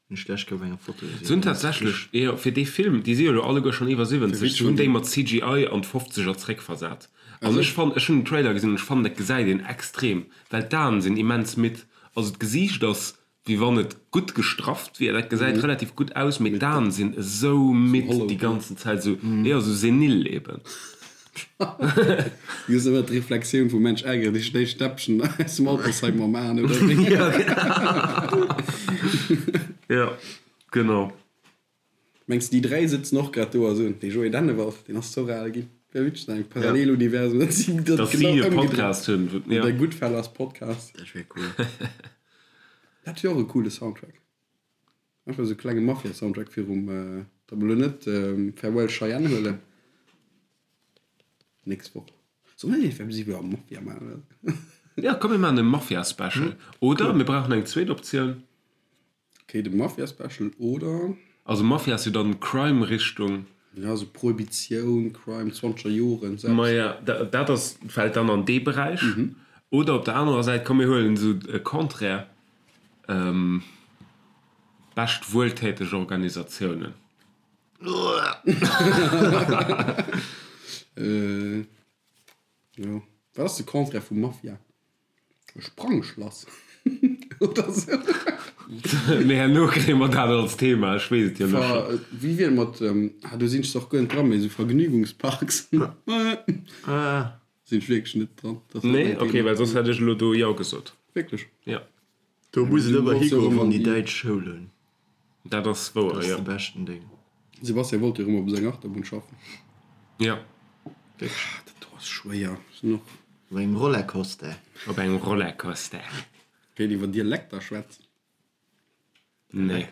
Hunn ech d'lescht Kéier op enger Foto gesinn. Se hunn tatsächlech, jo, fir dee Film, déi si jo elo alleguer schonn iwwer 70, se hunn déi mat CGI an d'Fofzeger zréckversat. An ech fannen, ech hunn den Trailer gesinn an ech fannen, dat gesäit een extrem, well d'Aen sinn immens midd. Also d'Gesiicht ass wéi wann et gutt gestrafft wier, dat gesäit relativ gutt aus, mee d'Aen sinn esou midd déi ganzen Zäit, esou, jo, esou senil eben. Du hues ëmmer d'Reflexioun vum Mensch ärgere dech, déi Stäppchen aus dem Altersheim mam Aen, oder wéi? Jo, genau. Mengs de déi 3 sëtzen och grad do a soen, dee Joé Dennewald, deen ass zoch al ginn. Wär witzeg an engem Paralleluniversum, datt si dat Datt si genau e ëmgedréit. Podcast hunn, wou, ja. Der Goodfellas Podcast. Dat wär cool. Dat wier och e coole Soundtrack. Einfach esou e klenge Mafia-Soundtrack virum, datt mer elo net Farewell Cheyenne huelen. Nächst Woch. Soll mer net einfach iwwer Mafia maachen? Ja, komm mir maachen e Mafia-Special. Oder mir brauchen eng zweet Optioun. Ok, de Mafia Special oder? Also Mafia ass jo dann Crime Richtung. Ja, sou Prohibitioun, Crime, zwanzeger Joren, selbst. Maja, dat ass, fällt dann an dee Beräich. Oder op der anerer Säit, komm mir huelen esou e Contraire, bescht wueltäteg Organisatiounen. Jo. Wat ass de Contraire vu Mafia? E Sprangschlass oder sou. Mee herno kréie mer dat als Thema, ech weess et jo elo scho. Wéi wier et mat, ah do sinn ech zwar och guer net dran, mee esou Vergnügungsparks? Sinn ech wierklech net dran. Nee? Ok, well soss hätt ech elo do jo gesot. Wierklech? Jo. Do muss et ëmmer higoen, wann déi däitsch Schoul hunn. Dat ass wouer, jo. Dat ass de beschten Ding. Sebastian wollt jo erëm op seng Achterbunn schaffen. Jo. Wierklech? Dat do ass schwéier. Sinn och. Op engem Rollercoaster. Op engem Rollercoaster. Kéint iwwer Dialekter schwätzen. Nee.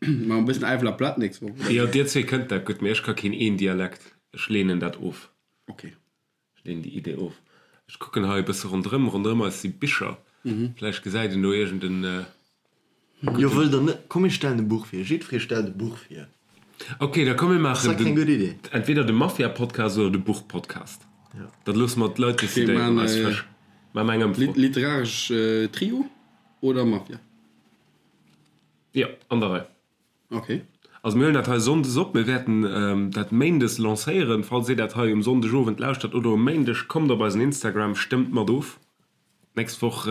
Ma e bëssen Äifeler Platt nächst Woch, oder? Jo, dir zwee kënnt dat gutt, mee ech ka keen een Dialekt. Ech leenen dat of. Ok. Ech leenen déi Idee of. Ech kucken hei e bësse ronderëm. Ronderëm eis si Bicher. Vläicht gesäit een do iergend en gudden. Jo, wëllt der net? Komm mir stellen e Buch vir. Jiddweree stellt e Buch vir. Ok, da komm mir maachen. Ass dat keng gutt Idee? Entweder de Mafia-Podcast oder de Buch-Podcast. Dat loosse mer d'Leit decidéieren. Eis Fësch. Maache mer eng Ëmfro. Literaresch Trio oder Mafia? Jo, an der Rei. Ok. Also mir huelen dat hei Sonndes op, mir wäerten dat Méindes lancéieren. Falls dir dat hei um Sonndegowend lauschtert oder um Méindeg, kommt op eisen Instagram, stëmmt mat of. D'nächst Woch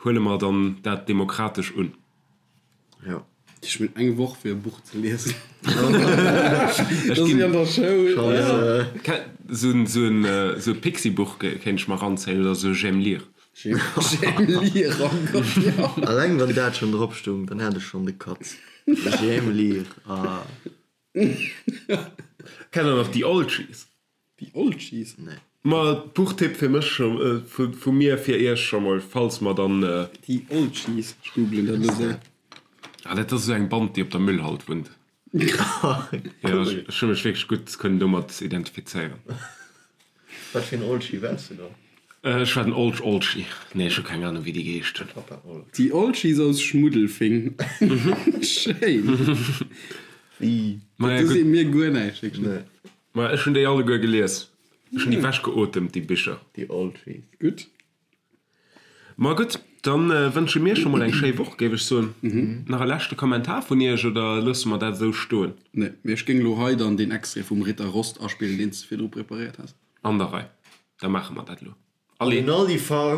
huele mer dann dat demokratesch un. Jo. Ech hunn eng Woch fir e Buch ze liesen. Dat ass wéi an der Schoul. Sou e Pixi-Buch kéint ech mer eranzéien oder sou e J'aime lire. J'aime lire, oh Gott, jo. Alleng wann dat schon drop stung, dann hat ech schon de Katz. J'aime lire, ah. Kennt der nach déi Oldschies? Déi Oldschies? Nee. Ma Buchtipp fir mech scho, vu mir fir iech scho mol, falls mer dann. Déi Oldschies, ech googlen dat elo séier. Ah, dat ass esou eng Band, déi op der Müllhalt wunnt. Jo, ech hu mech wierklech gutt kënnen domat identifizéieren. Wat fir en Oldschi waars du dann? Ech war den Olsch Olschi. Nee, ech hu keng Ahnung, wéi déi geheescht hunn. Papa Olsch. Déi Olschis aus Schmuddelfing. Schéin. Wéi? Maja, Dat gutt. seet mir guer näischt, wierklech net. Nee. Ma ech hunn déi alleguer gelies. Ech hunn déi wechgeotemt, déi Bicher. Déi Olschis. Gutt. Ma gutt, dann wënsche mir scho mol eng schéi Woch, géif ech soen. Nach e leschte Kommentar vun Iech oder loosse mer dat esou stoen? Nee, mee ech géing elo hei dann deen Extrait vum Ritter Rost aspillen, deen s de virdru preparéiert has. An der Rei, da maache mer dat elo. Allez! An den Aldi-Farm!